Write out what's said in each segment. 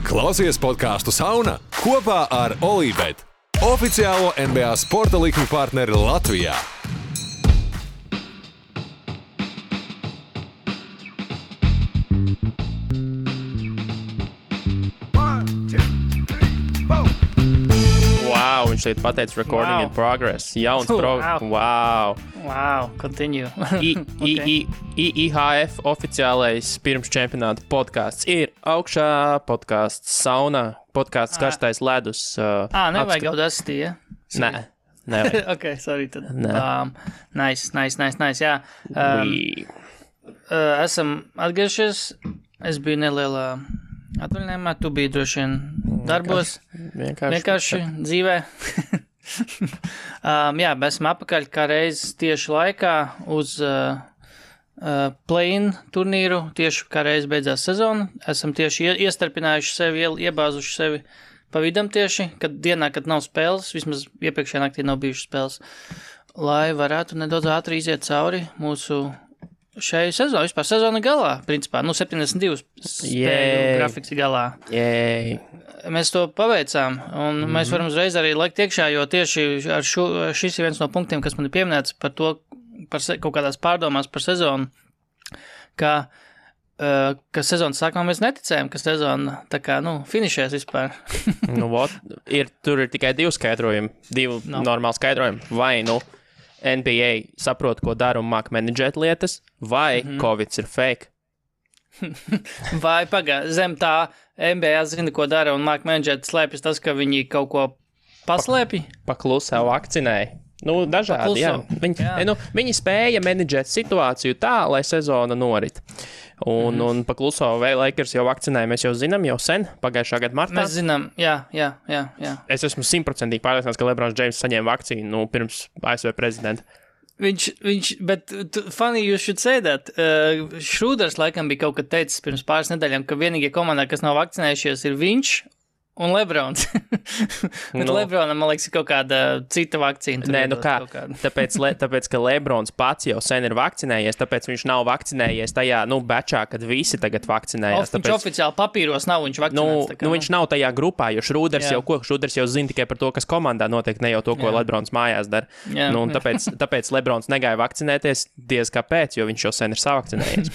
Klausies podcastu Sauna kopā ar Olībet, oficiālo NBA sporta likuma partneri Latvijā. Wow, viņš šeit pateica recording in progress. Jauns Wow, continue. IHF oficiālais pirms čempionāta podcasts ir augšā, podcasts Sauna, podcasts Karstais ledus. Nevajag Audacity, ja? Nē. Ok, sorry tad. Nice, jā. Esam atgriežies, es biju nelielā atvaļinājumā, tu biji droši vien darbos, vienkārši dzīvē. Jā, esam apakaļ kā reiz tieši laikā uz play-in turnīru, tieši kā reiz beidzās sezona. Esam tieši iestarpinājuši sevi, iebāzuši sevi pa vidam tieši, kad dienā, kad nav spēles, vismaz iepriekšējā naktī nav bijušas spēles, lai varētu nedaudz ātri iziet cauri mūsu šai sezonai, vispār sezona galā, principā, 72 spēļu grafiks galā. Mēs to paveicām, un mēs varam uzreiz arī laikt iekšā, jo tieši ar šis ir viens no punktiem, kas man ir pieminēts par to, par kaut kādās pārdomās par sezonu, ka sezonas sākumā mēs neticējām, ka sezona tā kā, finišēs vispār. Tur ir tikai divi skaidrojumi, normāli skaidrojumi, vai, NBA saprot, ko dara un māk menedžēt lietas, vai Covids ir fake. Vai zem tā NBA zina, ko dara un māk menedžēt, slēpjas tas, ka viņi kaut ko paslēpj? Paklusā vakcinēja. Dažādi, jā. Viņi spēja menedžēt situāciju tā, lai sezona norit. Un pakluso Lakers jau vakcinēja, mēs jau zinām, jau sen, pagājušā gada martā. Mēs zinām, jā. Es esmu 100% pārliecināts, ka LeBrons James saņēma vakcīnu pirms ASV prezidenta. Bet funny you should say that. Šrūders laikam bija kaut kad teicis pirms pāris nedēļām, ka vienīgie komandā, kas nav vakcinējušies, ir viņš un Lebrons. Bet Lebronam, man liekas, ir kaut kāda cita vakcīna. Tāpēc, ka Lebrons pats jau sen ir vakcinējies, tāpēc viņš nav vakcinējies tajā, bečā, kad visi tagad vakcinējās. Viņš oficiāli papīros nav, viņš vakcinēts. Viņš nav tajā grupā, jo Šrūders jau zina tikai par to, kas komandā notiek, ne jau to, ko Lebrons mājās dara. Tāpēc Lebrons negāja vakcinēties diez kāpēc, jo viņš jau sen ir savakcinējies.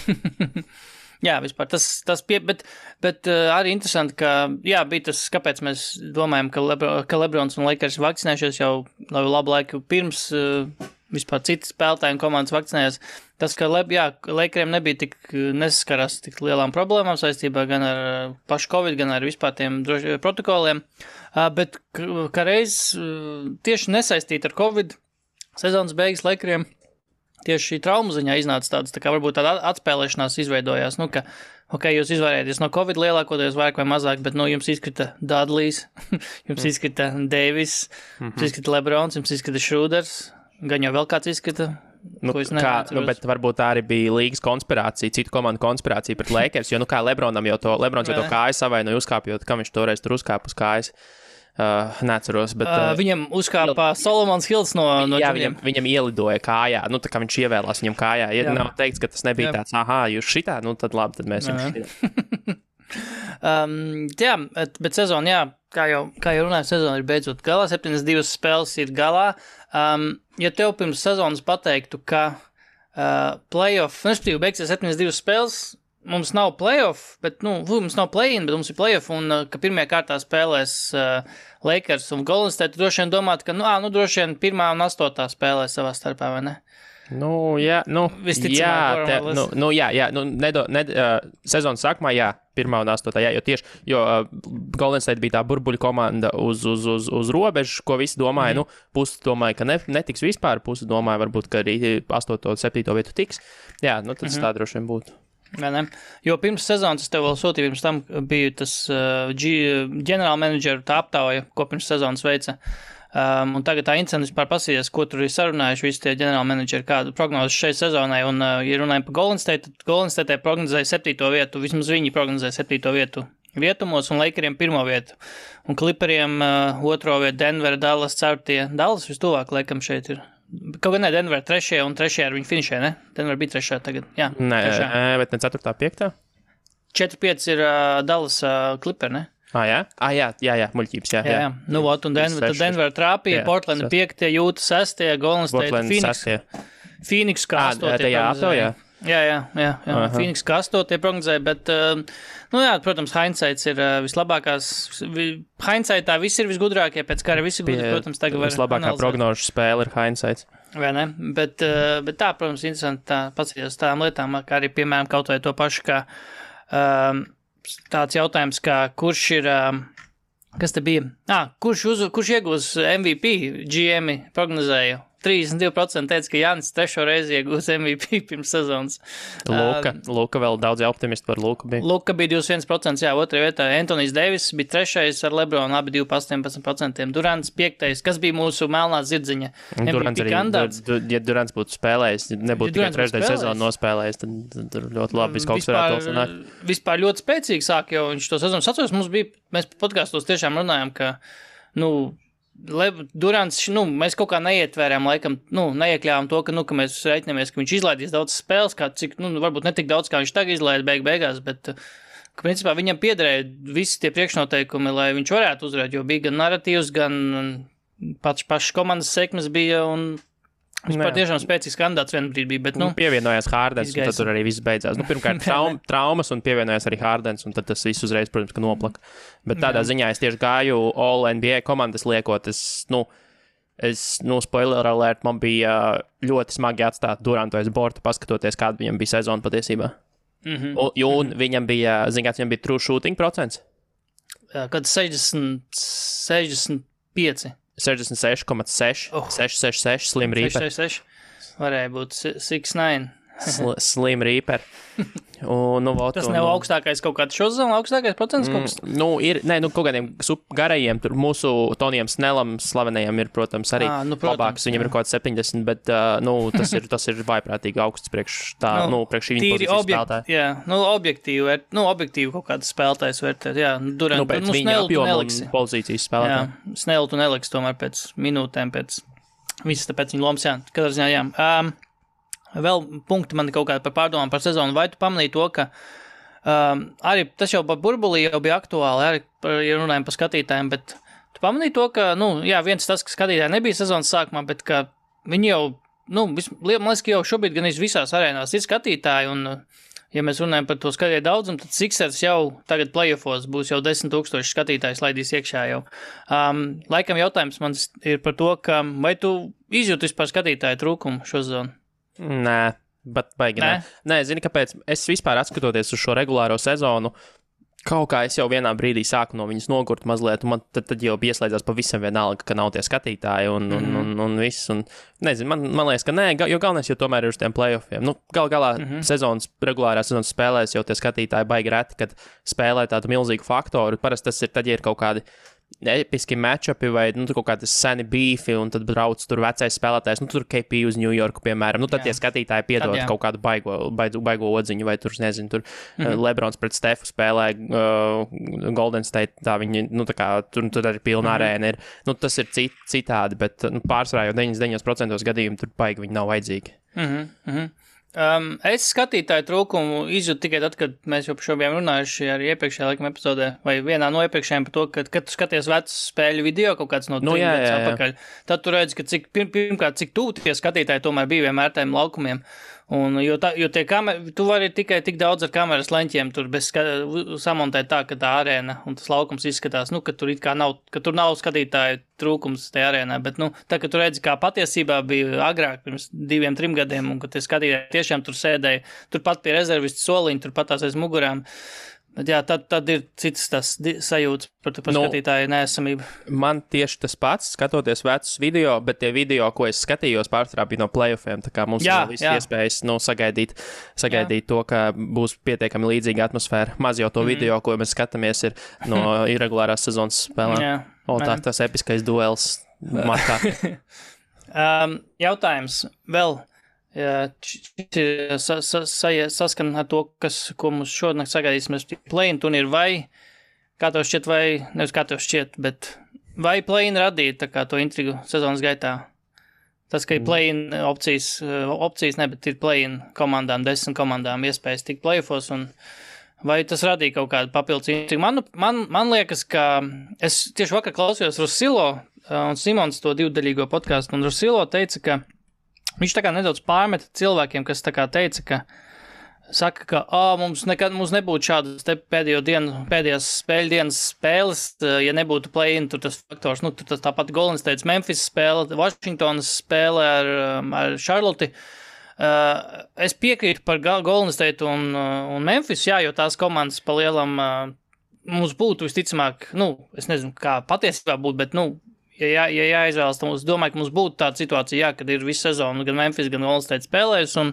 Jā, vispār bet arī interesanti, ka, bija tas, kāpēc mēs domājam, ka Lebrons un Lakers vakcinējušies jau labu laiku pirms vispār citas spēlētāji un komandas vakcinējās. Tas, ka Lakeriem nebija nesaskarās tik lielām problēmām saistībā gan ar pašu Covid, gan ar vispār tiem protokoliem, bet kā reiz tieši nesaistīt ar Covid sezonas beigas Lakeriem tieši šī traumu ziņā iznāca tāds, tā kā varbūt tāda atspēlēšanās izveidojās, ka, jūs izvairēties no Covid lielākoties vairāk vai mazāk, bet, jums izkrita Dudleys, jums izkrita Davis, jums izkrita Lebrons, jums izkrita Šrūders, gan jau vēl kāds izkrita, ko es neatceros. Bet varbūt tā arī bija līgas konspirācija, citu komandu konspirācija pret Lakers, jo, Lebrons jau to kāju savainoja uzkāpjot, kam viņš toreiz tur uzkāp uz kājas. Neatceros, bet... Viņam uzkāpā Solomons Hills no viņam ielidoja kājā, tā kā viņš ievēlās viņam kājā. Ja nav teikts, ka tas nebija tāds, jūs šitā, tad labi, tad mēs jums šitā. Bet sezona, kā jau runāju, sezona ir beidzot galā, 72 spēles ir galā. Ja tev pirms sezonas pateiktu, ka playoff, beigsies 72 spēles, mums nav playoff, bet, mums nav play-in, bet mums ir playoff, un ka pirmajā kārtā spēlēs Lakers un Golden State, droši vien domāt, ka, droši vien 1. un 8. spēlēs savā starpā, vai ne? Sezonas sākumā, 1. un 8. Jo Golden State bija tā burbuļu komanda uz robežu, ko visi domāja, pusi domāja, ka netiks vispār, pusi domāja, varbūt, ka arī 8. un 7. vietu tiks. Tad tas tā droši vien būtu. Jo pirms sezonas es tev vēl sūtīju, pirms tam bija tas ģenerāla menedžeru tā aptauja, ko pirms sezonas veica. Un tagad tā interesanti vispār pasīties, ko tur ir sarunājuši visi tie ģenerāla menedžeri, kādu prognozes šai sezonai. Un, ja runājam par Golden State, Golden State prognozēja 7. vietu, vismaz viņi prognozēja 7. vietu vietumos, un Lakeriem 1. vietu. Un Clipperiem 2. vietu, Denver, Dallas, 4. Dallas vistuvāk, laikam šeit ir. Kaut gan ne, Denver 3. un 3. ar viņu finišē, ne? Denver bija 3. tagad, Nē, bet ne 4. 5. 4-5 ir Dallas Clipper, ne? Jā, muļķības, jā. Nu, un Denver trāpīja, Portland 5, Jūta 6, Golden State, Phoenix kā 8. Jā. Phoenix kā 8 prognozēja, bet, protams, hindsights ir vislabākās. Hindsightā visi ir visgudrākie, pēc kā arī visi gudri, protams, tagad var vislabākā prognožu spēle ir hindsights. Vai ne? Bet tā, protams, interesanti tā paskatīties tādām lietām, kā arī, piemēram, kaut vai to pašu, kā tāds jautājums, kā kurš ir, kas te bija? Kurš iegūs MVP? GM prognozēja. 32% teica, ka Jānis 3. reizi iegūs MVP pirms sezonas. Luka vēl daudz optimisti par Luku bija. Luka bija 21%, jā, 2. vietā. Antonijs Deivis bija 3. ar Lebronu, abi 2,18%. Durants 5. Kas bija mūsu melnā zirdziņa MVP kandidāts? Ja Durants būtu spēlējis, nebūtu tikai 3. sezonu nospēlējis, tad ļoti labi kaut kas varētu sanākt. Vispār ļoti spēcīgi sāk, jo viņš to sezonu atceros, mēs podkastos tiešām runājam, ka, Durants, mēs kaut kā neietvērām, laikam, neiekļāvām to, ka mēs reiķinamies, ka viņš izlaidīs daudz spēles, cik, varbūt ne tik daudz, kā viņš tagad izlaida beigās, bet, ka principā viņam piederēja visi tie priekšnoteikumi, lai viņš varētu uzvarēt, jo bija gan narratīvs, gan pašas komandas sekmes bija, un vispār tiešām spēcīgs kandidāts vienā brīdī bija, bet, pievienojās Hārdens, un tad tur arī viss beidzās. Pirmkārt, traumas, un pievienojās arī Hārdens, un tad tas viss uzreiz, protams, ka noplaka. Bet tādā ziņā es tieši gāju All NBA komandas liekot, spoiler alert, man bija ļoti smagi atstāt Durantu aiz borta, paskatoties, kāda viņam bija sezona patiesībā. Un viņam bija, viņam bija true shooting procents? Kad 65. 66,6, 666, Slim Reaper. 666, varēja būt 69. Slim Reaper. Tas nav augstākais kaut kāds šo sezonu, augstākais procents kaut kas? Kaut kādiem garajiem, tur mūsu Tonijam Snelam slavenajam ir, protams, arī labāks, viņam ir kaut kāds 70, bet, tas ir vaiprātīgi augsts priekš šī viņa pozīcijas spēlētāja. Jā, objektīvi kaut kāds spēlētājs vērtēt, jā, Durant, pēc viņa apjoma un pozīcijas spēlētāja. Jā, Snell tu neliks tomēr pēc minūtēm, visas tāpēc viņa lomas, jā, katrā ziņā, jā. Vēl punkti man kaut kādi par pārdomām par sezonu. Vai tu pamanīji to, ka arī tas jau par burbulī jau bija aktuāli, arī ja runājam par skatītājiem, bet tu pamanīji to, ka, viens tas, ka skatītāji nebija sezonas sākumā, bet ka viņi jau, man liekas, ka jau šobrīd gan visās arēnās ir skatītāji, un ja mēs runājam par to skatītāju daudzumu, tad Sixers jau tagad playoffos būs jau 10,000 skatītājs laidīs iekšā jau. Laikam jautājums man ir par to, ka vai tu izjūti vispār skatītāju trūkumu šo sezonu? Nē, bet baigi nē. Nē, zini, kāpēc? Es vispār atskatoties uz šo regulāro sezonu, kaut kā es jau vienā brīdī sāku no viņas nogurt mazliet, un man tad jau pieslēdzās pavisam vienalga, ka nav tie skatītāji un viss. Un, nezinu, man liekas, ka nē, jo galvenais jau tomēr ir uz tiem playoffiem. Galā regulārā sezonas spēlēs jau tie skatītāji baigi reti, kad spēlē tādu milzīgu faktoru. Parasti tas ir tad, ja ir kaut kādi episki matchupi vai kaut kādas seni beefi, un tad brauc tur vecais spēlētājs, tur KP uz New Yorku, piemēram. Tad tie skatītāji piedod kaut kādu baigo odziņu, vai tur, nezinu, tur Lebrons pret Stefu spēlē Golden State, tā viņi, tur arī pilna arēna ir. Tas ir citādi, bet pārsvarā jau 99% gadījumu tur baigi viņi nav vajadzīgi. Es skatītāju trūkumu izjūtu tikai tad, kad mēs jau par šo bijām runājuši arī iepriekšējā laikam epizodē, vai vienā no iepriekšējiem par to, kad tu skaties vecus spēļu video kaut kāds no 3 gadus atpakaļ, tad tu redzi, ka pirmkārt, cik tuvu tie skatītāji tomēr bija vienmēr tiem laukumiem. Jo tie tu vari tikai tik daudz ar kameras leņķiem tur samontēt tā, ka tā arēna un tas laukums izskatās, ka tur it kā nav, ka tur nav skatītāju trūkums tajā arēnā, bet, tā, ka tu redzi, kā patiesībā bija agrāk, pirms 2-3 gadiem, un ka tie skatītāji tiešām tur sēdēja, turpat pie rezervistu soliņa, turpat tās aiz mugurām. Bet jā, tad ir citas tas sajūtas par skatītāju neesamību. Man tieši tas pats, skatoties vecus video, bet tie video, ko es skatījos, pārsvarā bija no playoffiem, tā kā mums ir viss iespējas sagaidīt to, ka būs pietiekami līdzīga atmosfēra. Maz jau to video, ko mēs skatāmies, ir no irregulārās sezonas spēlēm. Tas episkais duels markā. Jautājums vēl. Saskan ar to, ko mums šodien sagaidīs, mēs play-in turnīru vai, kā tev šķiet, vai, nevis kā tev šķiet, bet vai play-in radīja tā kā to intrigu sezonas gaitā? Tas, ka ir play-in opcijas ne, bet ir play-in komandām, 10 komandām iespējas tikt play-offos un Vai tas radīja kaut kādu papildus intrigu? Man liekas, ka es tieši vakar klausījos Rusilo un Simons to divdaļīgo podcastu, un Rusilo teica, ka viņš tā kā nedaudz pārmeta cilvēkiem, kas tā kā teica, ka saka, ka mums nebūtu šādas te pēdējās spēļu dienas spēles, ja nebūtu play-in, tur tas faktors, tur tas tāpat Golden State, Memphis spēle, Washingtonas spēle ar Charlotte. Es piekrītu par Golden State un Memphis, jā, jo tās komandas pa lielam mums būtu visticamāk, es nezinu, kā patiesībā būtu, bet, ja jāizvēlas, tad es domāju, ka mums būtu tāda situācija, jā, kad ir visu sezonu gan Memphis, gan Golden State spēlējus, un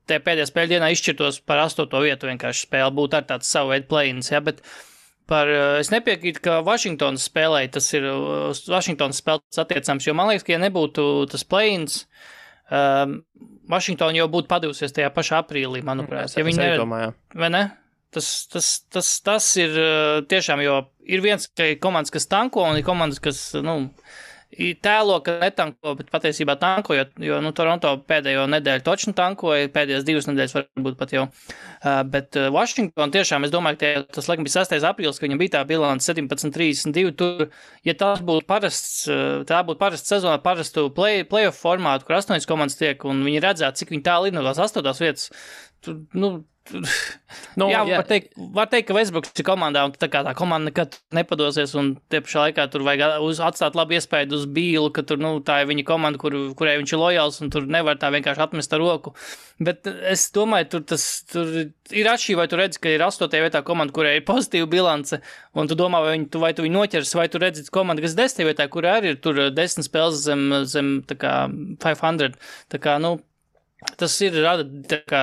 te pēdējā spēļu dienā izšķirtos par 8. vietu vienkārši spēle, būtu ar tāds savu veidu play-ins, jā, bet es nepiekrītu, ka Washingtonas spēlēja, tas ir Washingtonas spēles attiecams, jo man liekas, ka ja nebūtu tas play-ins, Washington jau būtu padevusies tajā pašā aprīlī, manuprāt. Ja viņi nedomāja. Vai ne? Tas ir tiešām, jo ir viens komandas, kas tanko, un ir komandas, kas, tēlo, ka netanko, bet patiesībā tanko, jo Toronto pēdējo nedēļu točni tankoja, pēdējās 2 nedēļas varbūt pat jau. Bet Washington tiešām, es domāju, ka tas laikam bija 6. aprīlis, ka viņam bija tā bilance 17-32, tur, ja tas būtu tā būtu parasta sezona, parastu playoff formātu, kur 8 komandas tiek, un viņi redzētu, cik viņi tālu ir no tās 8. vietas, tur, var teikt, ka Westbrooks ir komandā, un tā komanda nekad nepadosies, un tie pašā laikā tur vajag atstāt labu iespēju uz Bīlu, ka tur, tā ir viņa komanda, kurai viņš ir lojāls, un tur nevar tā vienkārši atmest ar roku. Bet es domāju, tur ir atšķirība, vai tu redzi, ka ir 8. vietā komanda, kurai ir pozitīva bilance, un tu domā, vai tu viņu noķers, vai tu redzi komanda, kas 10. vietā, kurai arī ir tur 10 spēles zem tā kā 500, tā kā, tas ir rada, tā kā,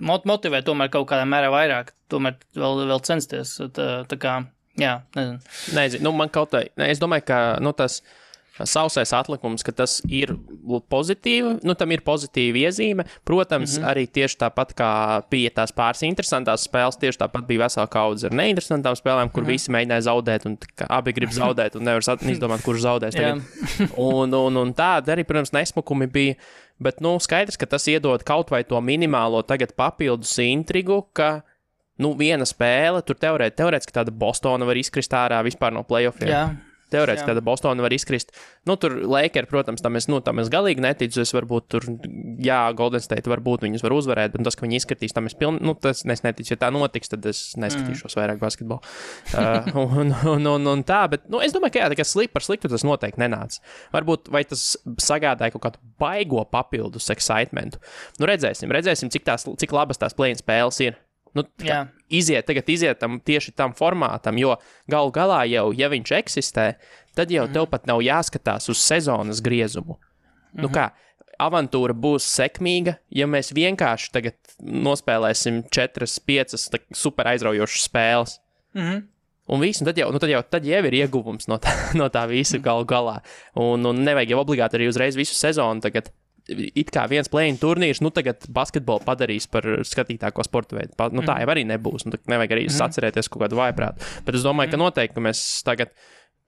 motivē tomēr kaut kādā mērā vairāk, tomēr vēl censties, tā kā, jā, nezinu. Nezinu, man kaut tā, es domāju, ka, tas sausais atlikums, ka tas ir pozitīvi, tam ir pozitīva iezīme, protams, arī tieši tāpat kā bija tās pāris interesantās spēles, tieši tāpat bija vesela kaudze ar neinteresantām spēlēm, kur visi mēģināja zaudēt, un abi grib zaudēt, un nevar izdomāt, kurš zaudēs tagad. Un tāda arī, protams, nesmukumi bija, bet, skaidrs, ka tas iedod kaut vai to minimālo tagad papildus intrigu, ka, viena spēle, tur teorētiski tāda Bostona var izkrist ārā vispār no playoffiem. Jā. Teorētiski tāda Bostona var izkrist. Tur Lakers, protams, tam es galīgi neticu. Es varbūt tur, Golden State varbūt viņus var uzvarēt, bet tas, ka viņi izskatīs, tam es tas neticu. Ja tā notiks, tad es neskatīšos vairāk basketbolu. Un tā, bet, es domāju, ka tā kā par sliktu tas noteikti nenāca. Varbūt, vai tas sagādāja kaut kādu baigo papildus excitementu. Redzēsim, cik labas tās play-in spēles ir. Iziet tieši tam formātam, jo galu galā jau, ja viņš eksistē, tad jau tev pat nav jāskatās uz sezonas griezumu. Kā, avantūra būs sekmīga, ja mēs vienkārši tagad nospēlēsim 4-5 super aizraujošas spēles. Un viss, un tad jau ir ieguvums no tā visa galu galā. Un nevajag jau obligāti arī uzreiz visu sezonu tagad. It kā viens play-in turnīrs, tagad basketbolu padarīs par skatītāko sporta veidu. Tā jau arī nebūs, nevajag arī sacerēties kaut kādu vājprātu. Bet es domāju, ka noteikti, ka mēs tagad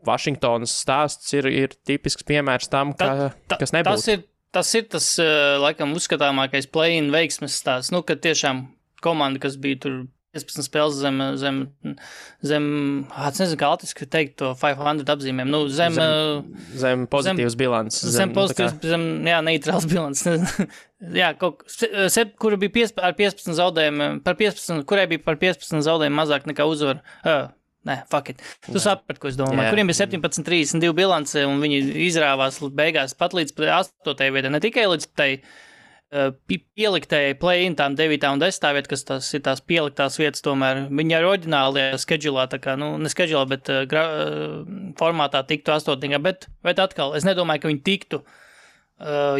Vašingtonas stāsts ir tipisks piemērs tam, kas nebūs. Tas ir tas, laikam, uzskatāmākais play-in veiksmes stāsts, ka tiešām komanda, kas bija tur 15 spēles zem nezinu, kā latviski teikt to 500 apzīmēm, zem pozitīvas bilances. Neitrāls bilances. Jā, kura bija ar 15 zaudējumiem, kurai bija par 15 zaudējumiem mazāk nekā uzvaru. Fuck it. Tu saprati, ko es domāju. Kuriem bija 17-32 bilance, un viņi izrāvās beigās pat līdz 8. vietai, ne tikai līdz tai pieliktēji play-in tām 9. un 10. vieta, kas tas ir tās pieliktās vietas tomēr. Viņi ar oriģinālajā schedulā, tā kā, ne schedulā, bet formātā tiktu 8. Bet atkal, es nedomāju, ka viņi tiktu,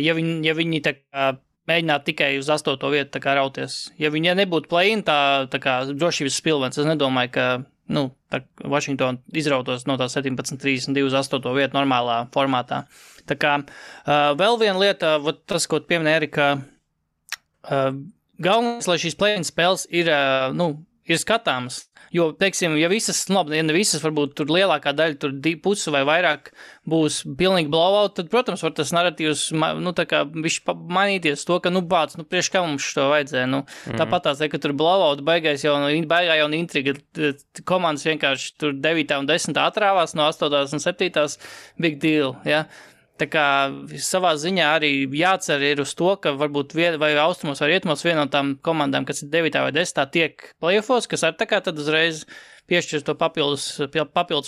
ja viņi tā kā mēģinātu tikai uz 8. vietu tā kā rauties. Ja viņi nebūtu play-in, tā kā drošības spilvens, es nedomāju, ka Washington izrautos no tā 17-32 uz 8. vietu normālā formātā. Tā kā vēl viena lieta, tas, ko tu pieminēji, Erika, galvenais, lai šīs play-in spēles ir ir skatāmas. Jo, teiksim, ja ne visas, varbūt tur lielākā daļa, tur pusi vai vairāk būs pilnīgi blowout, tad, protams, var tas narratīvs, tā kā viņš mainīties to, ka, priekš kā mums šo vajadzēja, tāpat tās, ka tur blowout baigā jau intriga, komandas vienkārši tur 9. un 10. atrāvās no 8. un 7. big deal, ja. Tā kā savā ziņā arī jācer ir uz to, ka varbūt vai austrumos vai rietumos viena no tām komandām, kas ir 9. vai 10. tiek playoffos, kas ar tā kā tad uzreiz piešķirs to papildus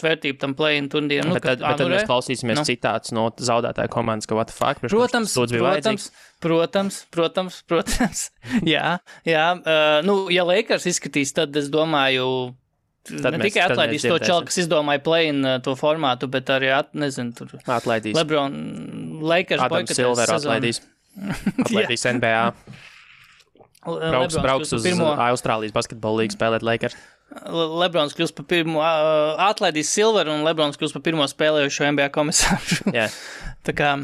vērtību tam play-in turnīram. Bet tad mēs klausīsimies citāts no zaudētāja komandas, ka what the fuck? Protams. Jā. Ja Lakers izskatīs, tad es domāju... Ne tikai atlaidīs to čalu, kas izdomāja play-in to formātu, bet arī, tur atlaidīs. LeBron, Lakers Adam Silver atlaidīs NBA. Brauks uz Austrālijas basketbola līgu spēlēt Lakers. LeBrons kļūst par pirmo, atlaidīs Silver un LeBrons kļūst par pirmo spēlējušo NBA komisāru. Yeah. Tā kā,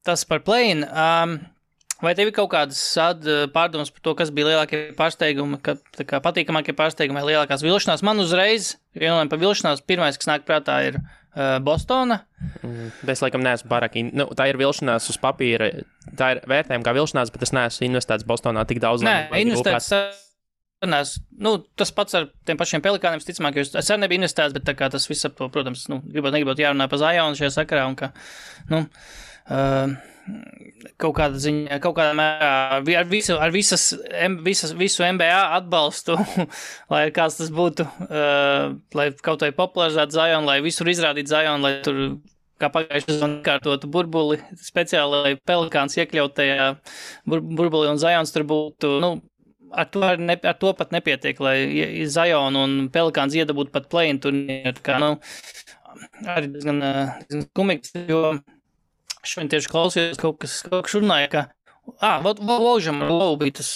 tas par play-in. Vai tev ir kaut kādas pārdomas par to, kas bija lielākie pārsteigumi, patīkamākie pārsteigumi vai lielākās vilšanās? Man uzreiz, runājot par vilšanās, pirmais, kas nāk prātā, ir Bostona. Es laikam neesmu pārāk, tā ir vilšanās uz papīra, tā ir vērtējuma kā vilšanās, bet es neesmu investēts Bostonā tik daudz. Nē, investēts, tas pats ar tiem pašiem Pelikāniem, ticamāk, jo es arī nebiju investēts, bet tā kā tas viss ap to, protams, negribot jārunā par Zionu šajā sakarā un ka, kaut kādā mērā ar visu NBA atbalstu, lai kāds tas būtu, lai kaut vai popularizētu Zionu, lai visur izrādītu Zionu, lai tur kā pagājušajā sezonā kārtotu burbuli, speciāli, lai Pelikāns iekļaut tajā burbuli un Zions tur būtu, ar to pat nepietiek, lai Zion un Pelikāns iedabūtu pat play-in turnīru, kā, arī diezgan kumīgs, jo šodien tieši klausījos kaut kas runāja, ka Vaužam ar Lovu bija tas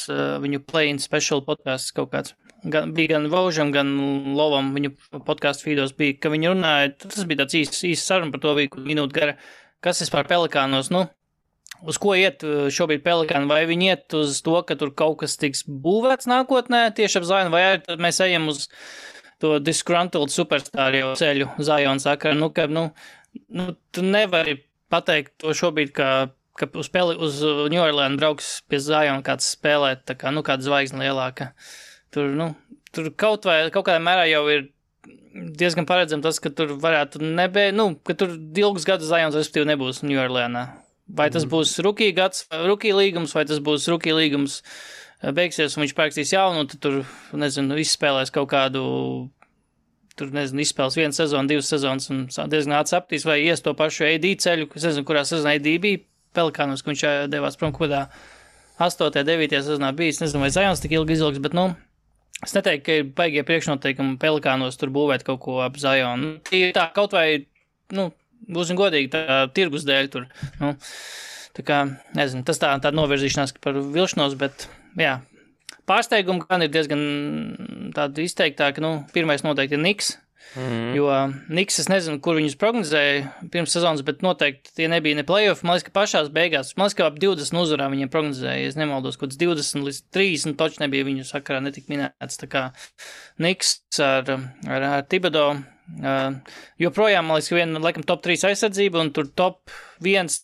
viņu play-in special podcasts kaut kāds. Bija gan Vaužam, gan Lovam viņu podcastu feedos bija, ka viņi runāja, tas bija tāds īsts saruna par to bija minūte gara, kas vispār Pelikānos, uz ko iet šobrīd Pelikāni, vai viņi iet uz to, ka tur kaut kas tiks būvēts nākotnē tieši ap Zionu, vai arī mēs ejam uz to disgruntled superstāru jau ceļu Zionu sakara, tu nevari pateikt to šobrīd, ka uz New Orleans brauks pie Ziona kāds spēlēt, tā kā, kāda zvaigzne lielāka. Tur kaut kādā mērā jau ir diezgan paredzam tas, ka tur varētu ka tur ilgus gadus Zions respektīvi nebūs New Orleansā. Vai tas būs rookie līgums, vai tas būs rookie līgums beigsies un viņš pārakstīs jaunu, un tad tur, izspēlēs kaut kādu izspēles 1 sezonu, 2 sezonas un diezgan atsaptīs, vai ies to pašu AD ceļu, es nezinu, kurā sezonā AD bija Pelikānos, ka viņš devās prom kodā 8. 9. sezonā bijis, nezinu, vai Zions tik ilgi izilgs, bet, es neteiktu, ka ir baigie priekšnoteikumi Pelikānos tur būvēt kaut ko ap Zionu. Tā kaut vai, būsim godīgi, tā tirgus dēļ tur, tā kā, nezinu, tas tā novirzīšanās par vilšanos, bet, jā. Pārsteigumi gan ir diezgan tādi izteiktāki, pirmais noteikti ir Knicks, jo Knicks, es nezinu, kur viņus prognozēja pirms sezonas, bet noteikti tie nebija ne playoff, man liekas, ka pašās beigās, ap 20 uzvarā viņiem prognozēja, es nemaldos, kaut kāds 20 līdz 30, toči nebija viņu sakarā netik minēts, tā kā Knicks ar Thibodeau, joprojām, man liekas, ka viena, laikam, top 3 aizsardzība, un tur top 1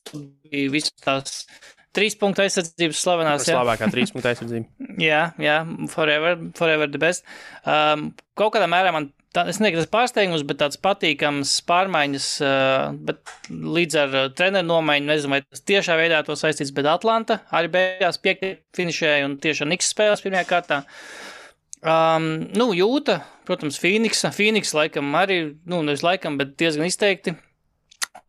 bija visas tās 3 punktu aizsardzības slavenās. Slavākā 3 punktu aizsardzība. Jā, forever the best. Kaut kādā mērā man, es nezinu, tas pārsteigums, bet tāds patīkams pārmaiņas, bet līdz ar treneru nomaiņu, nezinu, vai tas tiešā veidā to saistīts, bet Atlanta arī beigās 5. finišēja un tieši Knicks spēlēs pirmajā kārtā. Jūta, protams, Phoenix laikam arī, nevis laikam, bet diezgan izteikti.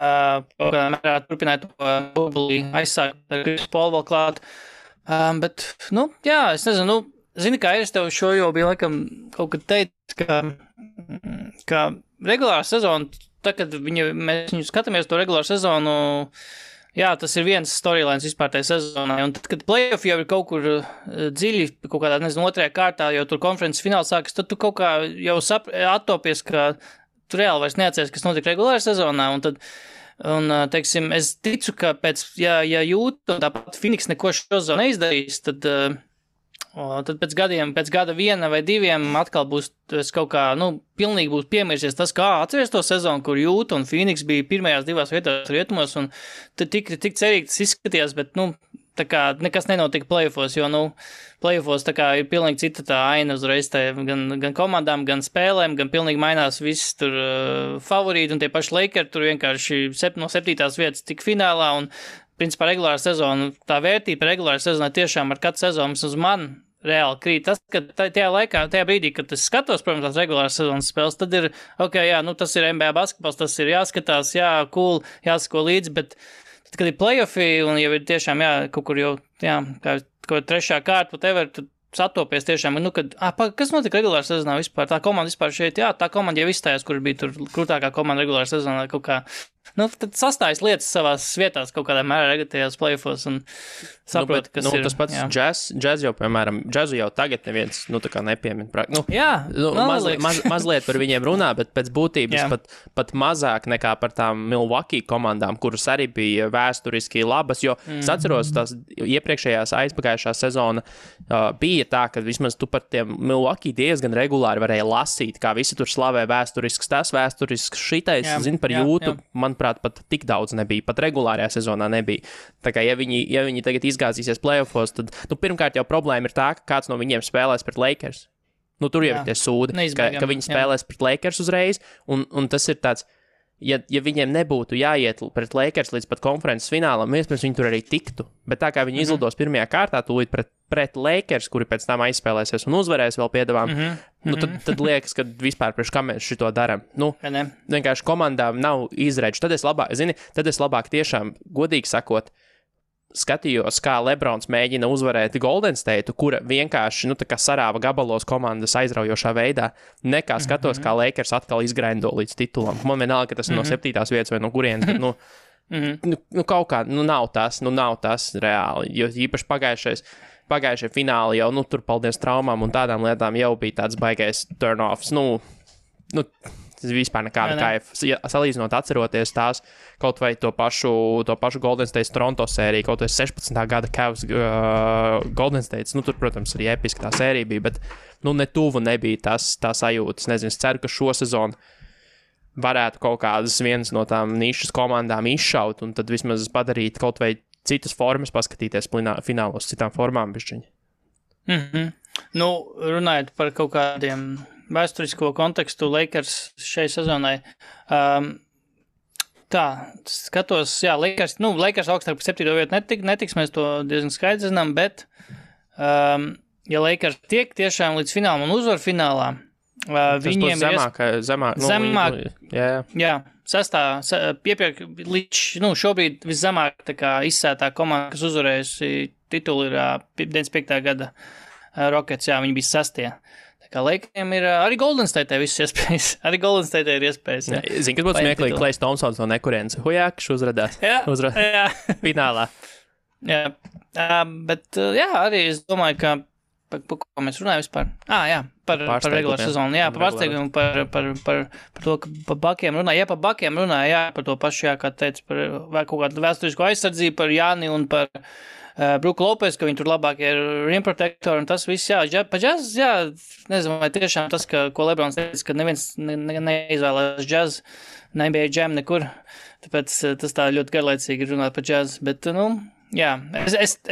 Turpināja to burbulī aizsākt ar Krisu Polu vēl klāt. Bet, es nezinu, zini, kā es tev šo jau bija laikam kaut kad teikt, ka regulāra sezona, kad mēs viņu skatāmies to regulāru sezonu, tas ir viens storylines vispār tajā sezonā, un tad, kad playoff jau ir kaut kur dziļi, kaut kādā, nezinu, 2. kārtā, jau tur konferences fināls sākas, tad tu kaut kā jau attopies, ka tu reāli vairs neatceries, kas notika regulārā sezonā, un teiksim, es ticu, ka ja jūt, un tāpat Phoenix neko šo sezonu neizdarīs, tad Tad pēc gada 1 vai 2 atkal būs kaut kā, pilnīgi būs piemirsies tas, kā atceries to sezonu, kur Jūta un Phoenix bija pirmajās 2 vietās rietumos, un tad tik cerīgi tas izskatījās, bet, tā kā nekas nenotika playoffos, jo, playoffos tā kā ir pilnīgi cita tā aina uzreiz gan komandām, gan spēlēm, gan pilnīgi mainās viss tur favorīti, un tie paši Lakers tur vienkārši no 7. vietas tik finālā, un principā regulāra sezona, tā vērtība regulāra sezonā tiešām ar katru sezonu uz mani reāli krīt. Tas, ka tajā brīdī, kad es skatos, protams, tās regulāras sezonas spēles, tad ir, tas ir NBA basketbols, tas ir jāskatās, cool, jāsako līdzi, bet tad, kad ir playoffi un jau ir tiešām, kaut kur jau, kā 3. kārta, whatever, tad satopies tiešām, kas notika regulāra sezonā vispār? Tā komanda vispār šeit, tā komanda jau izstājās, kur bija tur krūtākā komanda regulāra sezonā kaut kā. Tad sastājas lietas savās vietās kaut kādā mērā tagad playoffos un saprot, kas ir. Tas pats džaz jau, piemēram, džazu jau tagad neviens, tā kā nepiemin. Mazliet par viņiem runā, bet pēc būtības pat mazāk nekā par tām Milwaukee komandām, kuras arī bija vēsturiski labas, jo es atceros tās iepriekšējās aizpagājušā sezona bija tā, ka vismaz tu par tiem Milwaukee diezgan regulāri varēja lasīt, kā visi tur slavē vēsturisks tas, vēsturisks šitais, par Jūtu, manuprāt, pat tik daudz nebija, pat regulārajā sezonā nebija. Tā kā, ja viņi tagad izgāzīsies playoffos, tad, pirmkārt jau problēma ir tā, ka kāds no viņiem spēlēs pret Lakers. Tur jau ir tie sūdi, ka viņi spēlēs pret Lakers uzreiz, un tas ir tāds, ja viņiem nebūtu jāiet pret Lakers līdz pat konferences finālam, iespējams viņi tur arī tiktu, bet tā kā viņi izlidos pirmajā kārtā tūlīt pret Lakers, kuri pēc tam aizspēlēsies un uzvarēs vēl piedevām, tad liekas, ka vispār priekš kā mēs šito daram. Vienkārši komandām nav izredzi. Tad es labāk tiešām, godīgi sakot, skatījos, kā Lebrons mēģina uzvarēt Golden State, kura vienkārši, tā kā sarāva gabalos komandas aizraujošā veidā, nekā skatos, kā Lakers atkal izgraindo līdz titulam. Man vienalga, ka tas ir no 7. vietas vai no kurienes, bet, kaut kā, nav tas reāli, jo īpaši pagājušie fināli jau, tur paldies traumām un tādām lietām jau bija tāds baigais turn-offs, tas vispār nekāda kaifa. Salīdzinot, atceroties tās kaut vai to pašu Golden State Toronto sēriju, kaut vai 16. gada Cavs Golden State, tur, protams, arī episki tā sērija bija, bet, ne tuvu nebija tā sajūta. Es nezinu, es ceru, ka šo sezonu varētu kaut kādas vienas no tām nišas komandām izšaut un tad vismaz padarīt kaut vai citas formas, paskatīties finālos citām formām bišķiņi. Runājot par kaut kādiem vēsturisko kontekstu Lakers šai sezonai, skatos, Lakers augstāk par 7. vietu netiks, mēs to diezgan skaidri zinām, bet, ja Lakers tiek tiešām līdz finālam un uzvar finālā, viņiem ir zemāk, līdz, šobrīd viszemāk tā kā izsētā komanda, kas uzvarējusi titulu ir 95. gada Rockets, viņi bija 6. Tā kā Lakeriem ir arī Golden State viss iespējas. Arī Golden State ir iespējas. Zini, kas būtu smieklīgi, Klejs Thompsons no nekurienes. Hujākš uzradās. Finālā. Bet arī es domāju, ka par ko mēs runājam vispār? Par regulāru sezonu. Par pārsteigumu, par to, ka par bakiem runāja. Par bakiem runāja, par to pašu, kā teica, par kaut kādu vēsturisko aizsardzību, par Jāni un par Bruku Lopes, ka viņi tur labākie ir rim protektori un tas viss, pa džaz, nezinu, vai tiešām tas, ko Lebrons teica, ka neviens neizvēlās džaz, nebija džem nekur, tāpēc tas tā ļoti garlaicīgi runāt par džaz, bet,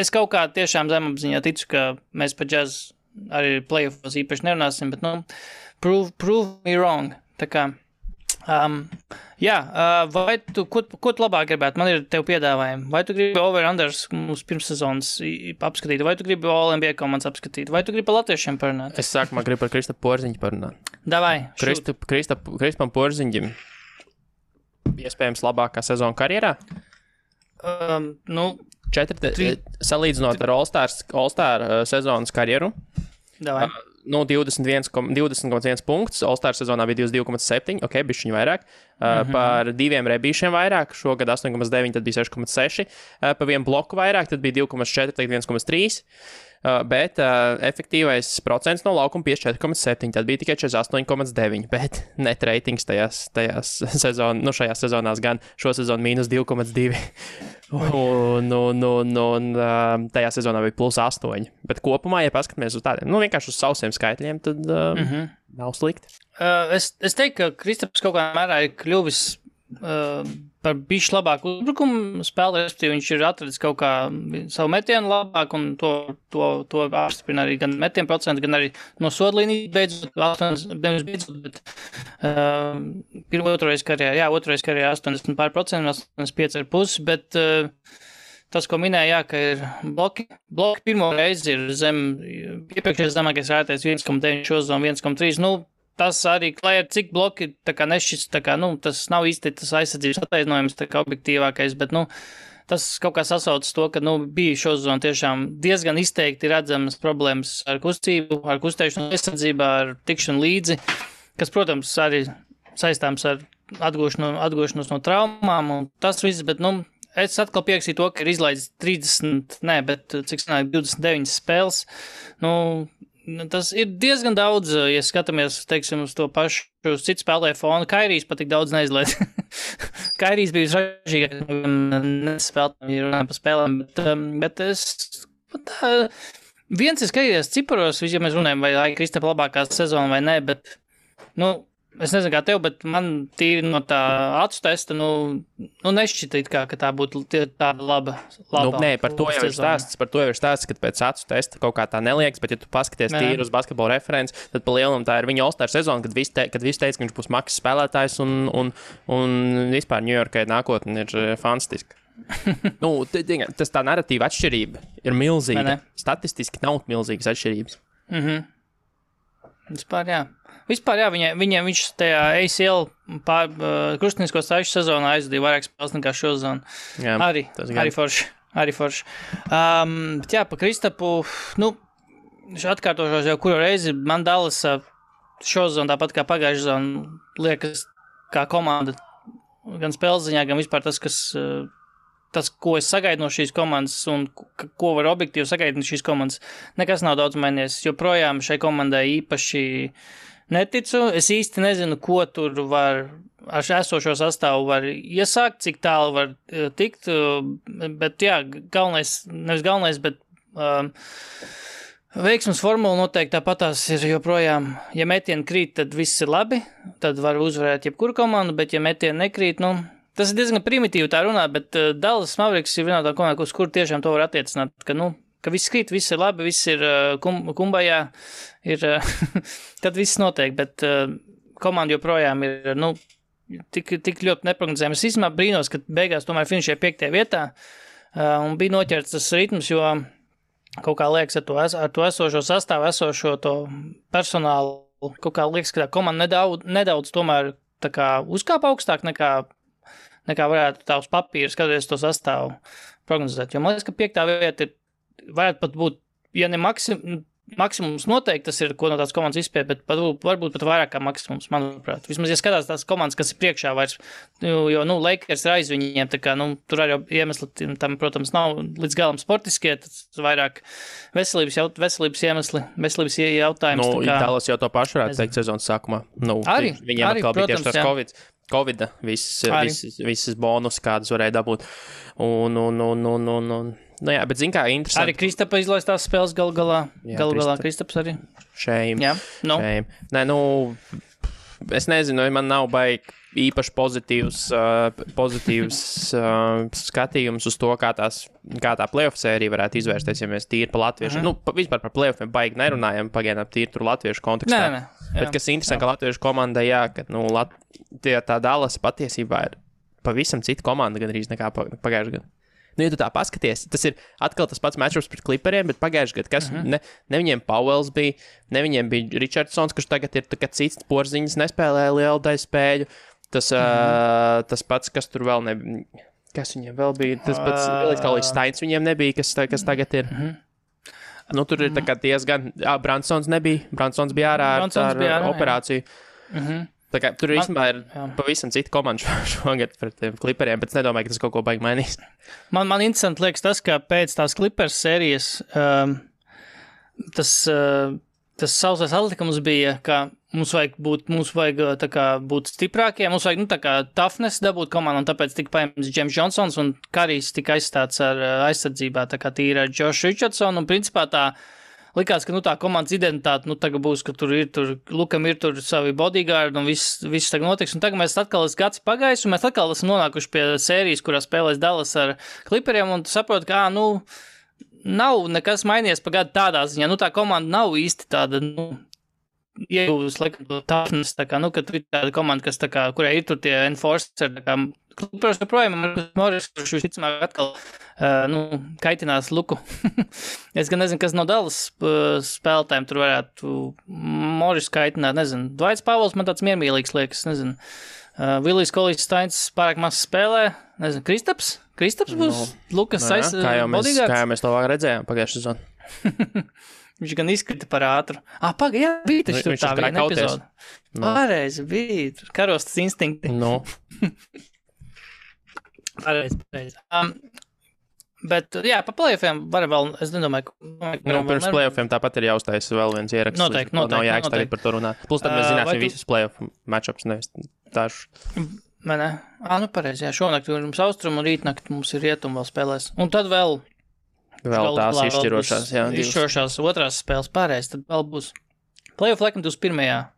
es kaut kā tiešām zemapziņā ticu, ka mēs par džaz arī playoffos īpaši nerunāsim, bet, prove me wrong, tā kā, vai tu, ko tu labāk gribētu? Man ir tev piedāvājumi. Vai tu gribi over-unders mums pirmssezonas apskatīt? Vai tu gribi All-NBA komandas apskatīt? Vai tu gribi par latviešiem parunāt? Es sākumā gribu par Kristapu Porziņu parunāt. Davai, Kristapam Porziņam iespējams labākā sezona karjerā? Salīdzinot ar All-Star sezonas karjeru. Davai. 20,1 punkts, All-Star sezonā bija 22,7, bišķiņu vairāk. par 2 rebīšiem vairāk, šogad 8,9, tad bija 6,6, pa 1 bloku vairāk, tad bija 2,4, tagad 1,3. Bet efektīvais procents no laukuma 54,7, tad bija tikai 48,9, bet net ratings šajās sezonās gan šo sezonu -2,2, un tajā sezonā bija +8, bet kopumā, ja paskatāmies uz tādiem, vienkārši uz sausiem skaitļiem, tad nav slikti. Es teiktu, ka Kristaps kaut kādā mērā ir kļuvis par bišķi labāku uzbrukumu spēli, respektīvi viņš ir atradis kaut kā savu metienu labāk, un to apstiprina arī gan metienu procentu, gan arī no sodlīnijas beidzot, bet otrais karjerā 80%, 85,5%, bet tas, ko minēja, ka ir bloki pirmo reizi ir iepriekšējais zemākais rētais 1,9 šo zonu, 1,3, tas arī, lai ar cik bloki tā kā nešķis, tā kā, tas nav īsti tas aizsardzības attaisnojums, tā kā objektīvākais, bet, tas kaut kā sasaucas to, ka, bija šo zonu tiešām diezgan izteikti redzamas problēmas ar kustību, ar kustēšanu aizsardzībā, ar tikšanu līdzi, kas, protams, arī saistāms ar atgūšanos no traumām un tas viss, bet, es atkal pieksīju to, ka ir izlaidis 29 spēles, tas ir diezgan daudz, ja skatāmies, teiksim, uz to pašu citu spēlēju fonu. Kairijs pat tik daudz neizlaid. Kairijs bija ražīgāk, nespēlētājiem par spēlēm, bet viens ir skatījies ciparos, ja mēs runājam, vai Kristapa labākā sezona vai nē, bet, es nezinu kā tev, bet man tīri no tā acu testa, nešķita it kā, ka tā būtu tāda laba. Nē, par to jau ir stāsts, ka pēc acu testa kaut kā tā neliekas, bet ja tu paskaties tīri uz basketbola referents, tad pa lielam tā ir viņa All-Star sezona, kad visi teica, ka viņš būs maksas spēlētājs un vispār Ņujorkai nākotne ir fantastiska. Tas tā narratīva atšķirība ir milzīga. Statistiski nav milzīgas atšķirības. Vispār, jā, viņš tajā ACL krustinisko saišu sezonā aizdīja vairāk spēles nekā šo zonu. Jā, arī forši. Bet jā, pa Kristapu, atkārtošos jau kuru reizi man Dallas šo zonu, tāpat kā pagājušā zona, liekas kā komanda, gan spēles ziņā, gan vispār tas, ko es sagaidu no šīs komandas un ko var objektīvi sagaidīt no šīs komandas, nekas nav daudz mainījies. Joprojām šai komandai īpaši neticu. Es īsti nezinu, ko tur var ar esošo sastāvu var iesākt, cik tālu var tikt, bet jā, nevis galvenais, bet veiksmes formula noteikti tāpatās ir joprojām, ja metieni krīt, tad viss ir labi, tad var uzvarēt jebkuru komandu, bet ja metieni nekrīt, tas ir diezgan primitīvi tā runāt, bet Dallas Mavericks ir vienā tā komanda, uz kur tiešām to var attiecināt, ka viss krīt, viss ir labi, viss ir kumbajā, tad viss notiek, bet komanda joprojām ir, tik ļoti neprognozējama. Es īstenībā brīnos, ka beigās tomēr finišēja 5. vietā un bija noķerts tas ritms, jo kaut kā liekas ar to esošo sastāvu, esošo to personālu, kaut kā liekas, ka tā komanda nedaudz tomēr tā kā uzkāpa augstāk nekā varētu tā uz papīra skatoties to sastāvu prognozēt. Jo man liekas, ka 5. vieta varētu pat būt, ja ne maksimums noteikti, tas ir, ko no tās komandas izspēja, bet varbūt pat vairāk kā maksimums, manuprāt. Vismaz, ja skatās tās komandas, kas ir priekšā vairs, jo, Lakers ir aiz viņiem, tā kā, tur arī iemesli tam, protams, nav līdz galam sportiskie, tas vairāk veselības iemesli, veselības jautājums. Dallas jau to pašu varētu teikt sezonas sākumā. Viņiem atkal bija tieši tas Covid, visas bonus, kādas varēja dabūt. Jā, bet zin kā interesanti. Arī Kristapa izlaistās spēles galā Kristaps arī. Shame. Nē, es nezinu, man nav baigi īpaši pozitīvs skatījums uz to, kā tā playoff sērija varētu izvērsties, ja mēs tīri pa latviešu, vispār par playoffiem baigi nerunājam, pagaidām tīri tur latviešu kontekstā. Nē. Bet kas interesanti, ka latviešu komandai, jā, ka, tā Dallas patiesībā ir pavisam cita komanda gandrīz nekā pagājušajā gadā. Ja tu tā paskaties, tas ir atkal tas pats matchups pret Clipperiem, bet pagājušajā gadā, kas ne viņiem Powells bija, ne viņiem bija Richardsons, kurš tagad ir cits porziņas, nespēlēja lielu daļu spēļu. Tas pats, kas tur vēl nebija, kas viņiem vēl bija, tas pats Elitkalīs Steins viņiem nebija, kas tagad ir. Tur ir tā kā diezgan, Bransons nebija, Bransons bija ārā ar operāciju. Tā kā tur īstenībā ir pavisam cita komanda šogad pret tiem Clipperiem, bet es nedomāju, ka tas kaut ko baigi mainīs. Man interesanti liekas tas, ka pēc tās Clippers sērijas tas sausais atlikums bija, ka mums vajag tā kā būt stiprākiem, mums vajag, tā kā toughness dabūt komandu, un tāpēc tika paņemts James Johnsons, un Karijs tika aizstāts ar aizsardzībā, tā kā tīri ar Josh Richardson, un principā tā likās, ka, tā komandas identitāte, tagad būs, ka Lukam ir tur savi bodyguard, un viss tagad notiks, un tagad mēs atkal gads pagājis, un mēs atkal esam nonākuši pie sērijas, kurā spēlēs Dallas ar Clipperiem, un saprot, ka, nav nekas mainījies pa gadu tādā ziņā, tā komanda nav īsti tāda, iegūst, laikam, to toughness, tā kā, ka tur ir tāda komanda, kas, tā kā, kurai ir tur tie enforcer, tā kā, Clippers joprojām, Morris, kurš visticamāk atkal, kaitinās Luku. Es gan nezinu, kas no Dallas spēlētājiem tur varētu Morris kaitināt, nezinu. Dvaits Pavels man tāds miermīlīgs liekas, nezinu. Vilijs Kolijs Steins pārāk maz spēlē, nezinu, Kristaps būs Lukas bodyguards. Kā jau mēs to vēl redzējām pagājušajā sezonā. Viņš gan izkrita par ātru. Jā, bija taču tur tā viena epizode. Pareizi, bija karostas instinkti. Pareizi. Bet, pa playoffiem var vēl, es nedomāju, pirms playoffiem tāpat ir jāuztais vēl viens ieraksts. Noteikti. Nav jāiks tagad par to runāt. Plus tad mēs zināsim visus playoff matchups, nevis dažus. Pareizi, šonakt mums austrumu un rītnakt mums ir rietumu vēl spēlēs. Un tad vēl tās izšķirošās, izšķirošās otrās spēles pareizi, tad vēl būs playoff laikam 21.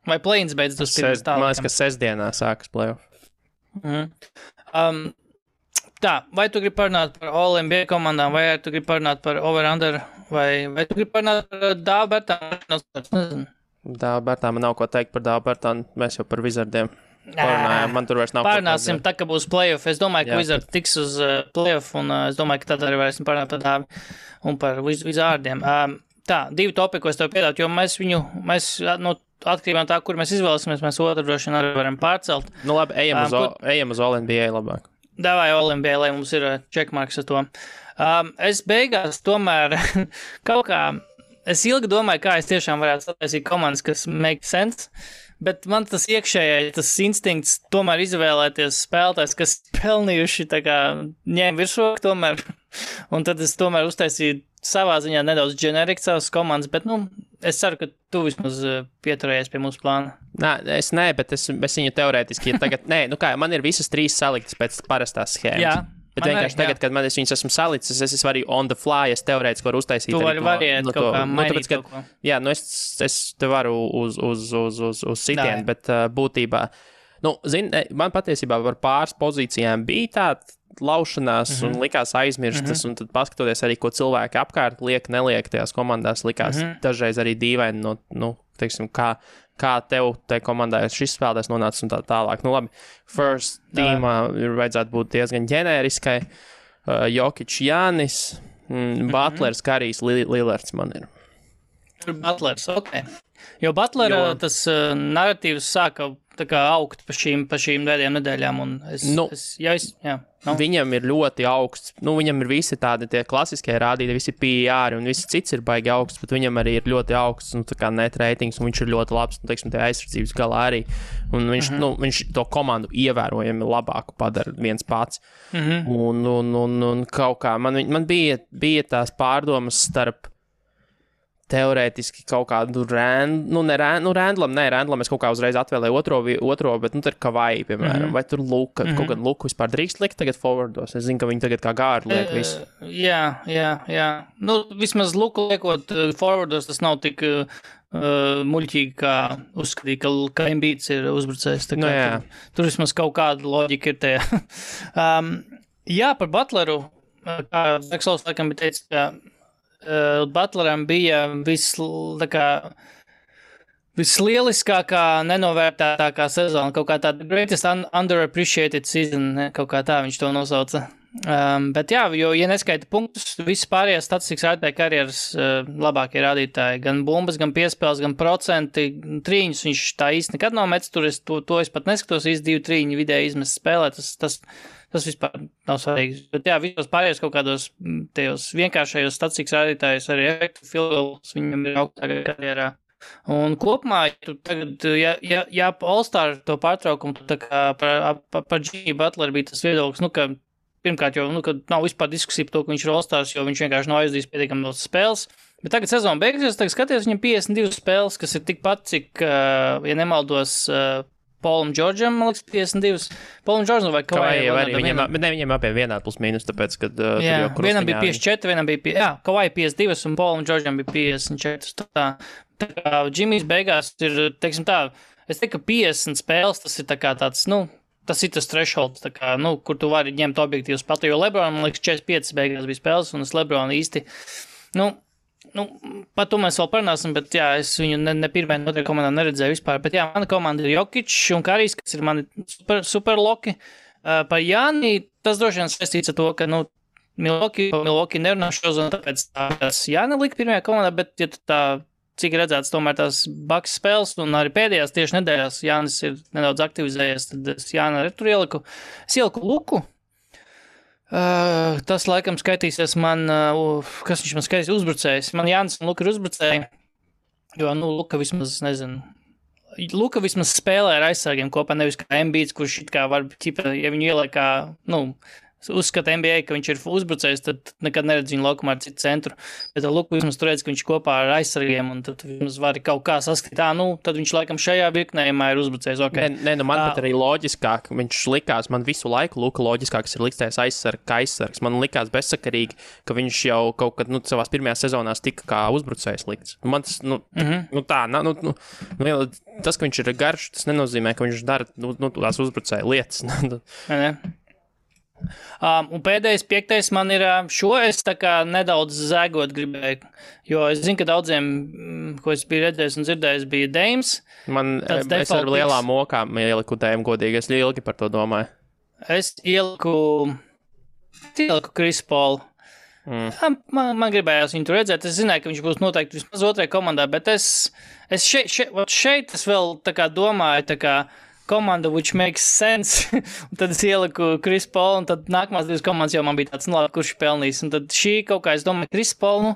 Vai play-ins beidz 21. Man liekas, ka sestdienā sākas playoff. Tā, vai tu gribi parunāt par All-NBA komandām, vai tu gribi parunāt par over-under, vai tu gribi parunāt par Dābertānu? Dābertānu man nav ko teikt par Dābertānu, mēs jau par Wizardiem parunājām, man tur vairs nav. Parunāsim, tā, ka būs playoff, es domāju, ka Wizard tiks uz playoff, un es domāju, ka tad arī varēsim parunāt par Dābi un par Wizardiem. Tā, divi topi, ko es tev piedātu, jo mēs atkarībā no tā, kur mēs izvēlēsimies, mēs otru droši vien arī varam pārcelt. Labi, ejam uz All-NBA labāk. Davai All-NBA, lai mums ir checkmarks ar to. Es beigās tomēr kaut kā, es ilgi domāju, kā es tiešām varētu sataisīt komandas, kas make sense, bet man tas tas instinkts tomēr izvēlēties spēlētājs, kas pelnījuši tā kā ņēma virsroku tomēr, un tad es tomēr uztaisīju savā ziņā nedaudz generiku savas komandas, bet, es ceru, ka tu vismaz pieturējies pie mūsu plāna. Es viņu teorētiski, tagad, man ir visas trīs saliktas pēc parastās schēmas. Jā. Bet vienkārši tagad, kad es viņus esmu salicis, es varu on the fly, es teorētiski varu uztaisīt. Tu variet kaut kā, mainīt kaut ko. Jā, es te varu uz sitienu, bet būtībā, man patiesībā par pāris pozīcijām bija tāda laušanās un likās aizmirstas, un tad paskatoties arī, ko cilvēki apkārt neliek tajās komandās, likās dažreiz arī dīvaini, teiksim, kā tev tai komandai šis spēlētājs nonācis un tā tālāk. Labi, first teamā ir vajadzētu būt diezgan ģenēriskai. Jokic, Jānis, Butlers, Karijs, Lillards man ir. Butlers, ok. Jo Butlera tas narratīvs sāka tā kā augt pa šīm pēdējām nedēļām, un viņam ir ļoti augsts, viņam ir visi tādi tie klasiskie rādītāji, visi PR un visi cits ir baigi augsts, bet viņam arī ir ļoti augsts, tā kā net ratings, un viņš ir ļoti labs, teiksim, tie aizsardzības galā arī, un viņš to komandu ievērojami labāku padara viens pats, un kaut kā, man bija tās pārdomas starp teorētiski kaut kādu Randlam es kaut kā uzreiz atvēlēju otro, bet tur Kavai, piemēram, vai tur Luka, kaut gan Luku vispār drīkst likt tagad forwardos, es zinu, ka viņi tagad kā gārdu liek visu. Jā. Vismaz Luku liekot forwardos, tas nav tik muļķīgi, kā uzskatīt, ka Embiids ir uzbrucējs. Tur vismaz kaut kāda loģika ir tajā. Par Butleru, kā Veksels laikam bija teicis, ka Butleram bija vislieliskākā, nenovērtētākā sezona, kaut kā tāda greatest underappreciated season, kaut kā tā viņš to nosauca. Bet jo, ja neskaita punktus, visas pārējās statistikas rādītāji karjeras labākie rādītāji, gan bumbas, gan piespēles, gan procenti, trīņus viņš tā īsti nekad nav metis, to es pat neskatos, īsti 2 trīņi vidēji izmest spēlē, tas vispār nav svarīgi. Bet visos pārējos kaut kādos tajos vienkāršajos statistikas rādītājos arī efektu field goals viņam ir augstākā karjerā. Un kopumā, ja All-Star to pārtraukumu, tā kā par Jimmy Butler bija tas viedoklis, ka pirmkārt jau, ka nav vispār diskusija par to, ka viņš ir All-Stars, jo viņš vienkārši nav aizdījis pietiekami daudz spēles. Bet tagad sezona beigsies, tagad skaties, viņam 52 spēles, kas ir tikpat, cik, ja nemaldos, Paulam Džordžam, man liekas, 52. Paulam Džordžam vai Kawai? Viņiem abiem vienādi plus mīnus, tāpēc, kad vienam bija 54, vienam bija, Kawai 52 un Paulam Džordžam bija 54. Tā kā Jimmy's beigās ir, teiksim tā, es teiktu, ka 50 spēles, tas ir tā kā tāds, tas ir tas thresholds, tā kā, kur tu vari ņemt objektīvu spēlēt, jo LeBron, man liekas, 45 beigās bija spēles, un es LeBron īsti, par to mēs vēl parunāsim, bet es viņu ne pirmajā, ne otrajā komandā neredzēju vispār. Bet mana komanda ir Jokic un Karijs, kas ir mani super loki. Par Jāni tas droši vien saistīts ar to, ka Milwaukee nerunā šo zonu, tāpēc tas Jāni lika pirmajā komandā, bet ja tā, cik redzēts, tomēr tās Bucks spēles un arī pēdējās tieši nedēļās Jānis ir nedaudz aktivizējies, tad es Jāni tur ieliku. Es ieliku Luku. Tas laikam skaitīsies man, kas viņš man skaitīs, uzbrucējs. Man Jānis un Luka ir uzbrucēji, jo, Luka vismaz, Luka vismaz spēlē ar aizsargiem kopā, nevis kā Embiids, kurš it kā var, ja viņu ieliek kā, uzskata NBA, ka viņš ir uzbrucējs, tad nekad neredz viņu laukumā ar citu centru. Bet Luka vismaz tur redz, ka viņš kopā ar aizsargiem, un tad vismaz var kaut kā saskatīt, tad viņš laikam šajā virknējumā ir uzbrucējs. Okay. Man pat arī loģiskāk, viņš likās, man visu laiku Luka loģiskāks ir liktais aizsargs. Man likās bezsakarīgi, ka viņš jau kaut kad, savās pirmajās sezonās tika kā uzbrucējs likts. Man tas, tas, ka viņš ir garš, tas nenozīmē, ka viņš dara, tās uzbrucēja lietas. Un pēdējais 5. man ir es tā kā nedaudz zēgot gribēju, jo es zinu, ka daudziem, ko es biju redzējis un dzirdējis, bija Dames. Es ar lielām mokām ieliku Dame godīgi, es ilgi par to domāju. Es ieliku Chris Paul. Man gribējās viņu tur redzēt, es zināju, ka viņš būs noteikti vismaz otrajā komandā, bet es šeit es vēl tā kā domāju, tā kā komanda, which makes sense, un tad es ieliku Chris Paul, un tad nākamās 2 komandas jau man bija tāds, labi, kurš pelnīs, un tad šī kaut kā, es domāju, Chris Paul,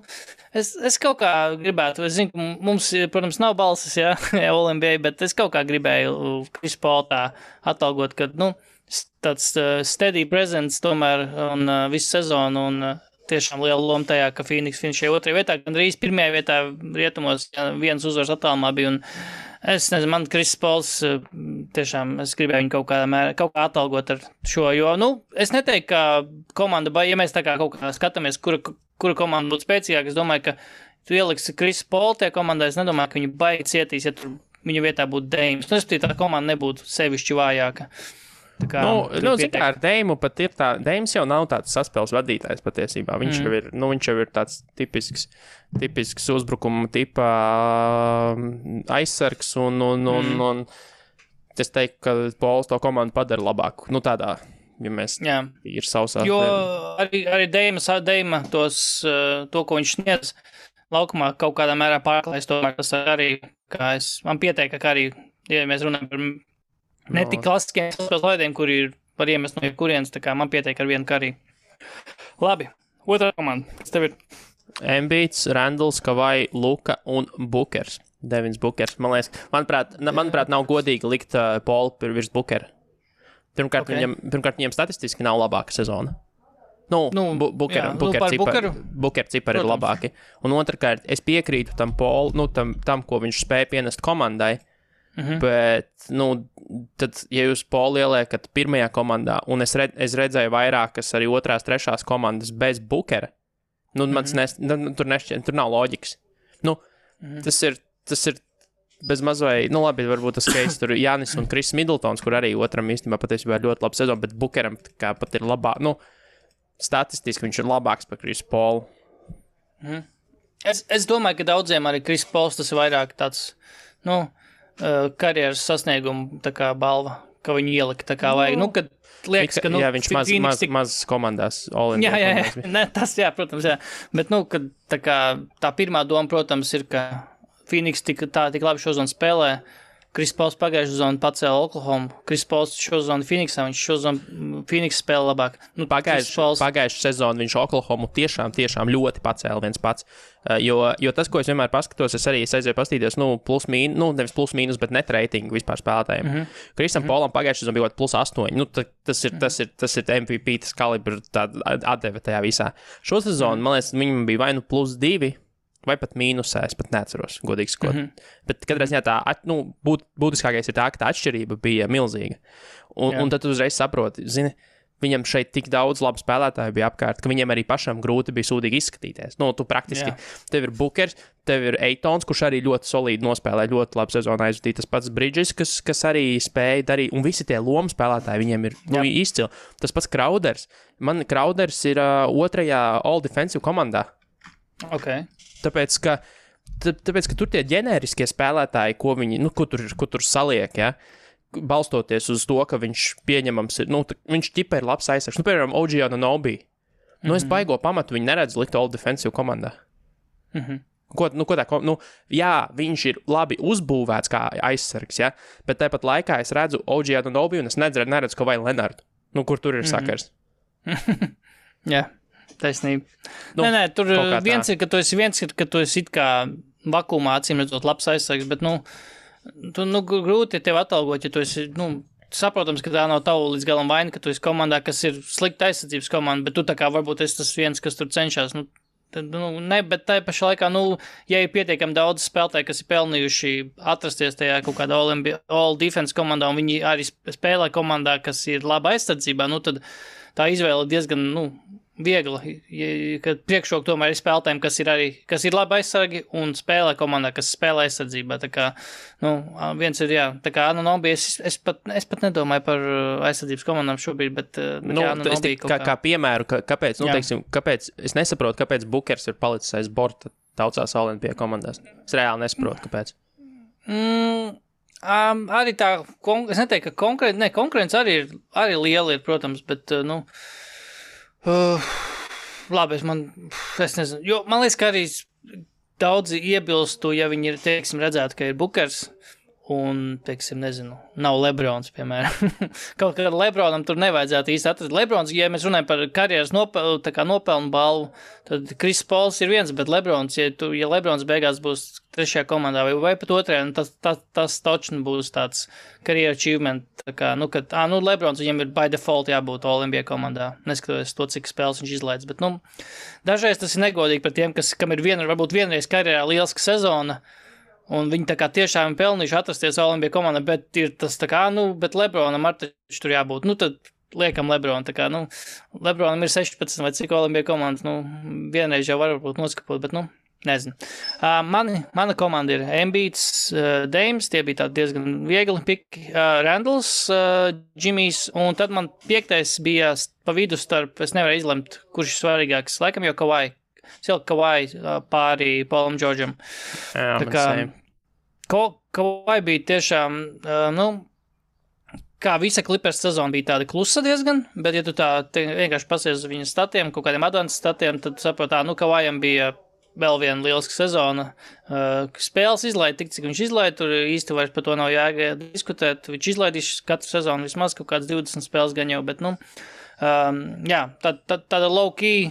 es kaut kā gribētu, es zinu, mums, protams, nav balsis, All-NBA, bet es kaut kā gribēju Chris Paul tā atalgot, kad, tāds steady presence tomēr, un visu sezonu, un tiešām liela loma tajā, ka Phoenix finišēja 2. vietā, gan drīz 1. vietā rietumos, viens uzvars attālumā bija, un es nezinu, man Chris Pauls tiešām, es gribēju viņu kaut kā atalgot ar šo, jo, es neteiktu, ka komanda, ja mēs tā kā kaut kā skatāmies, kura komanda būtu spēcīgāka, es domāju, ka tu ieliksi Chris Paul tie komandā, es nedomāju, ka viņu baigi cietīs, ja tur viņa vietā būtu Dames. Tā komanda nebūtu sevišķi vājāka. Ar Deimu pat ir tā, Deims jau nav tāds saspēles vadītājs patiesībā. Viņš jau ir tāds tipisks uzbrukuma tipa aizsargs un es teiktu, ka Pauls to komandu padara labāku. Tādā, ja mēs ir sausā. Jo arī Deima to, ko viņš sniedz laukumā kaut kādā mērā pārklājas, tomēr tas arī, man pieteika, ka arī, ja mēs runājam par ne tik klasiskiem spēles laidiem, kuri var iemest no jebkurienes, tā kā man pietiek ar vienu kariju. Labi, otrā komanda. Kas tev ir? Embiids, Randalls, Kawai, Luka un Bookers. Devins Bookers. Manuprāt, nav godīgi likt Paulu virs Bookera. Pirmkārt, viņam statistiski nav labāka sezona. Booker cipari ir labāki. Un otrkārt, es piekrītu tam Paulu, tam, ko viņš spēja pienest komandai. Bet, tad, ja jūs Paulu ieliekat pirmajā komandā, un es redzēju vairākas arī 2., 3. komandas bez Bookera, tur nav loģikas. Tas ir bez mazvai, labi, varbūt tas case tur Jānis un Kris Middletons, kur arī otram īstenībā patiesībā ir ļoti laba sezona, bet Bookeram kā pat ir statistiski viņš ir labāks par Krisu Paulu. Es domāju, ka daudziem arī Kris Pauls tas ir vairāk tāds, karjeras sasniegumu tā kā balva, ka viņu ielika tā kā vajag. Kad liekas, ka, viņš maz komandās. Jā. Tas, protams, jā. Bet, kad tā pirmā doma, protams, ir, ka Phoenix tik labi šo zonu spēlē. Kris Pauls pagājušo zonu pacēla Oklahoma. Kris Pauls šo zonu Phoenixā, viņš šo zonu Phoenix spēle labāk. Pagājušā sezonā viņš Oklahomu tiešām ļoti pacēla viens pats. Jo tas, ko es vienmēr paskatos, es arī aizēju pastīties, nevis plus mīnus, bet net reitingu vispār spēlētājiem. Kristam Polam pagājušā sezonā bija plus 8. Tas ir MVP, tas kalibrs, tāda atdeve tajā visā. Šo sezonu, man liekas, viņam bija vai nu plus 2, vai pat mīnusā, es pat neatceros, godīgi sakot. Bet katrā ziņā tā, būtiskākais ir tā, ka tā atšķirība bija milzīga. Un tad tu uzreiz saproti, viņam šeit tik daudz labu spēlētāju bija apkārt, ka viņiem arī pašam grūti bija sūdīgi izskatīties. Tu praktiski, tev ir Bookers, tev ir Eitons, kurš arī ļoti solīdi nospēlē, ļoti labu sezonu aizvadīja. Tas pats Bridges, kas arī spēja darīt, un visi tie lomu spēlētāji viņiem ir izcili. Tas pats Crowders. Man Crowders ir otrajā All-Defensive komandā. Okay. Tāpēc, ka tur tie ģenēriskie spēlētāji, ko viņi, ko tur saliek, balstoties uz to, ka viņš pieņemams ir, viņš ķipa ir labs aizsargs. Piemēram, OG Anunoby. Es baigo pamatu viņu neredzu likt All-Defensive komandā. Viņš ir labi uzbūvēts kā aizsargs, bet tāpat laikā es redzu OG Anunoby un es neredzu Kawhi Leonardu. Kur tur ir sakars? Jā. Taisnība. Nē, tur viens ir, ka tu esi it kā vakumā acīm redzot labs aizsargs, bet, grūti tev atalgot, ja tu esi, saprotams, ka tā nav tavu līdz galam vaina, ka tu esi komandā, kas ir slikta aizsardzības komanda, bet tu tā kā varbūt esi tas viens, kas tur cenšas, bet tā pašā laikā, ja ir pietiekami daudz spēlētāji, kas ir pelnījuši atrasties tajā kaut kādā all-defense komandā, un viņi arī spēlē komandā, kas ir laba aizsardzībā, tad tā izvēle diezgan, viegla, kad priekšrok tomēr ir spēlētājiem, kas ir labi aizsargi un spēlē komandā, kas spēlē aizsardzībā. Tā kā, viens ir, tā kā Anunoby, es pat nedomāju par aizsardzības komandām šobrīd, bet Anunoby kā piemēru, kāpēc, kāpēc, es nesaprotu, kāpēc Bookers ir palicis aiz borta daudzās Olimpija komandās. Es reāli nesaprotu, kāpēc. Arī tā, es neteiktu, ka konkurence arī liela ir, protams, bet, labi, es nezinu, jo man liekas, ka arī daudzi iebilstu, ja viņi ir, redzētu, ka ir Bookers un, nezinu, nav Lebrons, piemēram. Kaut kā Lebronam tur nevajadzētu īsti atrast. Lebrons, ja mēs runājam par karjeras nopelnu balvu, tad Chris Pauls ir viens, bet Lebrons, ja Lebrons beigās būs trešajā komandā vai pat otrajā, tas točni būs tāds career achievement. Tā kā, kad Lebrons viņam ir by default jābūt All-NBA komandā, neskatoties to, cik spēles viņš izlaids. Bet, dažreiz tas ir negodīgi par tiem, kam ir varbūt vienreiz karjerā lieliska sezona, un viņi tā kā tiešām pelnījuši atrasties All-NBA komandā, bet ir tas tā kā, bet Lebronam ar taču tur jābūt. Tad liekam Lebron, tā kā, Lebronam ir 16 vai cik All-NBA komandas, vienreiz jau varbūt noskapot, bet, nezinu. Mana komanda ir Embiids, Dames, tie bija tādi diezgan viegli piki, Randalls, Jimmys, un tad man 5. bija pa vidu starp, es nevaru izlemt, kurš ir svarīgāks, laikam jau Kawhi. Kawhi pāri Paulam Džordžam. Tā kā Kawhi bija tiešām, kā visa Clippers sezona bija tāda klusa diezgan, bet ja tu vienkārši pasies uz viņa statiem, kaut kādiem advanced statiem, tad saprot, Kawhijam bija vēl viena lieliska sezona. Spēles izlaida tik, cik viņš izlaida, tur īsti vairs par to nav diskutēt. Viņš izlaidīs katru sezonu vismaz kaut kāds 20 spēles gan jau, bet, tāda low-key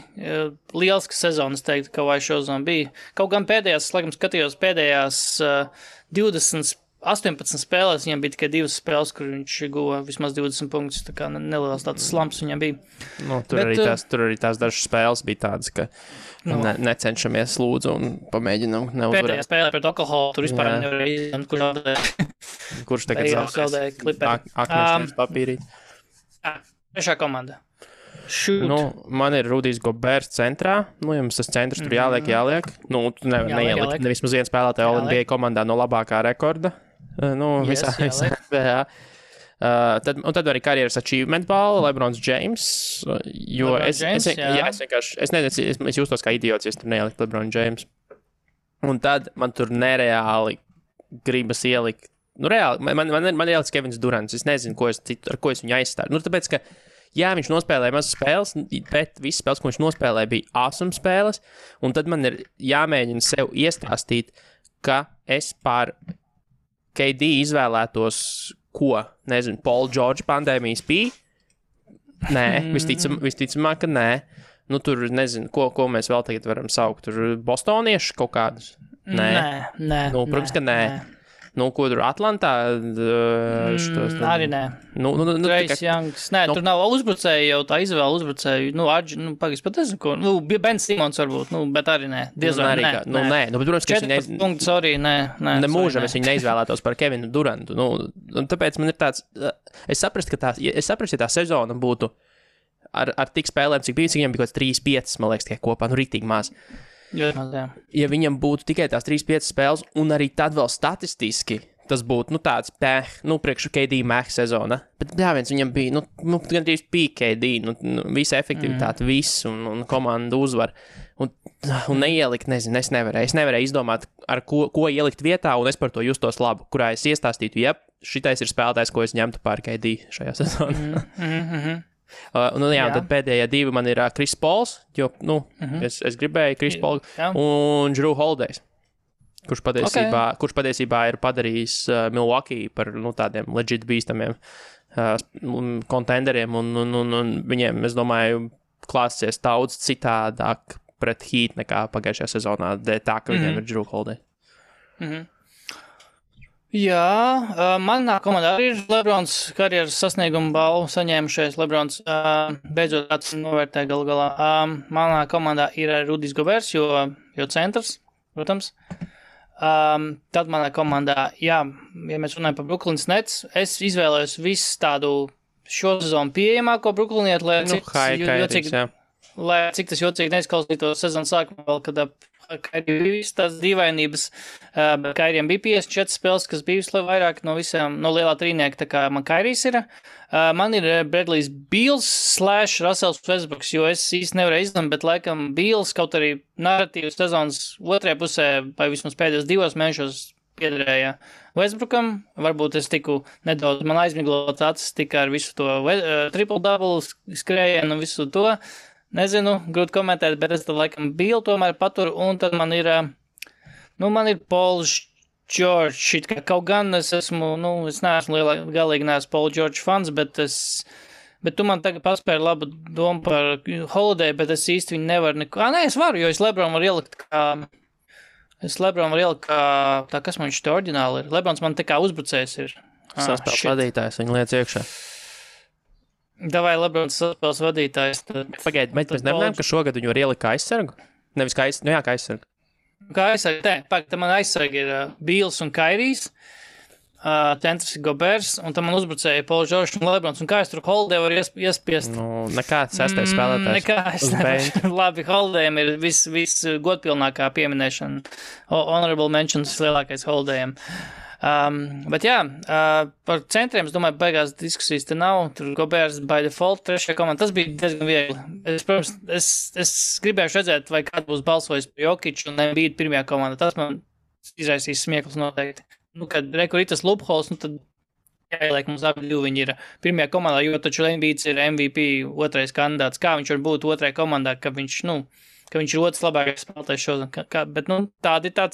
lieliska sezona, es teiktu, ka vai šo zonu bija. Kaut gan pēdējās, laikam skatījos pēdējās 18 spēlēs, viņam bija tikai 2 spēles, kur viņš guva vismaz 20 punktus, tā kā neliels tāds slumps viņam bija. Tur arī tās dažas spēles bija tādas, ka necenšamies lūdzu un pamēģinam neuzvarēt. Pēdējā spēlē pret Oklahoma, tur vispār nevarēja izlemt, kurš tagad zaudēja Clippers. Akmeņš papīrīt. Trešā komanda. Man ir Rudijs Goberts centrā. Jums tas centrs tur jāliek. Tu neielikt nevismaz viens spēlētāju All-NBA komandā no labākā rekorda. Visā NBA. Tad arī karjeras achievement balva Lebrons James. Jo es jūtos kā idiots, ja es tur neielikt Lebron James. Un tad man tur nereāli gribas ielikt. Reāli, man ieliks Kevins Durants. Es nezinu, ar ko es viņu aizstāju. Tāpēc, ka viņš nospēlēja mazas spēles, bet visas spēles, ko viņš nospēlēja, bija awesome spēles, un tad man ir jāmēģina sev iestāstīt, ka es pār KD izvēlētos, Paul George pandēmijas bija, Nē, visticamāk, ka nē. Nu, tur nezinu, ko mēs vēl tagad varam saukt. Tur bostonieši kaut kādus? Nē. Nu, protams, ka nē. Nu, ko tur Atlantā? Arī nē. Trace Youngs. Nē, tur nav uzbrucēji jau tā izvēle uzbrucēju. Pagaidzi pat nezinu, ko. Ben Simons varbūt, bet arī nē. Diezvēl, nē. Nu, bet, protams, ka 14 punkti, sorry, nē. Nemūžam es viņu neizvēlētos par Kevinu Durantu. Nu, un tāpēc man ir tāds, es saprastu, ja tā sezona būtu ar tik spēlēm, cik viņam bija kaut kāds 3-5, man liekas, tikai kopā, nu, rītīgi maz. Ja viņam būtu tikai tās 3-5 spēles, un arī tad vēl statistiski, tas būtu, tāds priekšu KD Max sezona. Bet, viņam bija, gandrīz pīk KD, visa efektivitāte, viss, un komanda uzvar. Un neielikt, nezinu, es nevarēju izdomāt, ar ko ielikt vietā, un es par to justos labu, kurā es iestāstītu, šitais ir spēlētājs, ko es ņemtu pār KD šajā sezonā. Tad pēdējie divi man ir Chris Pauls, jo, es gribēju Chris Paul un Jrue Holidays, kurš patiesībā ir padarījis Milwaukee par, tādiem legit bīstamiem kontenderiem, un viņiem, es domāju, klāsies daudz citādāk pret Heat nekā pagājušajā sezonā, tā, ka viņiem ir Jrue Holiday. Jā, manā komandā arī ir Lebrons karjeras sasnieguma balvu saņēmušais. Lebrons beidzot tāds novērtē galu galā. Manā komandā ir Rudijs Gobers, jo centrs, protams. Tad manā komandā, ja mēs runājam par Brooklynas Nets, es izvēlējos visu tādu šo sezonu pieejamāko Brooklynietu, lai cik tas jocīgi neizklausītos sezonas sākumā vēl, kad Kairijam bija visas tās dīvainības, bet Kairijam bija 54 spēles, kas bija vairāk no visām, no lielā trīnieka, tā kā man Kairijs ir. Man ir Bradley's Beals / Russells Westbrooks, jo es īsti nevarēju izlemt, bet laikam Beals kaut arī narratīvas sezonas otrajā pusē, vai vismaz pēdējos 2 mēnešos piederēja Westbrookam. Varbūt es tiku nedaudz, man aizmiglots acis tika ar visu to triple-double skrējienu un visu to. Nezinu, grūti komentēt, bet es tad laikam Bill tomēr paturu, un tad man ir Paul George, kaut gan es esmu, es neesmu galīgi neesmu Paul George fans, bet tu man tagad paspēri labu domu par Holiday, bet es īsti viņu nevaru neko, es varu, jo es Lebron varu ielikt kā, tā kas man viņš te oriģināli ir, Lebrons man tā kā uzbrucējs ir. Saspēles vadītājs, viņu liec iekšā. Davai Lebrons saspēles vadītājs. Pagaid, bet mēs nemanām, ka šogad viņu var ielikt kā aizsargu? Nevis kā aizsargu. Kā aizsargu, tā man aizsargi ir Bīls un Kairijs, centrs ir Gobers, un tam man uzbrucēja Paul George un Lebrons, un kā es tur Holiday var iespiest? Nekāds sestais spēlētājs. Nekā es nevaru. Labi, Holidayam ir viss godpilnākā pieminēšana. Honorable mentions lielākais Holidayam. Bet jā, par centriem, es domāju, beigās diskusijas te nav, tur Gobers by default, trešajā komanda, tas bija diezgan viegli. Es gribējuši redzēt, vai kāds būs balsojis par Jokiču un Embiid pirmajā komandā, tas man izraisīs smieklus noteikti. Kad rekur ir tas loopholes, tad jāieliek mums abi divi viņi ir pirmajā komandā, jo taču Embiids ir MVP otrais kandidāts, kā viņš var būt otrajā komandā, ka viņš ir otrs labākais spēlētājs šodien, bet tādi tā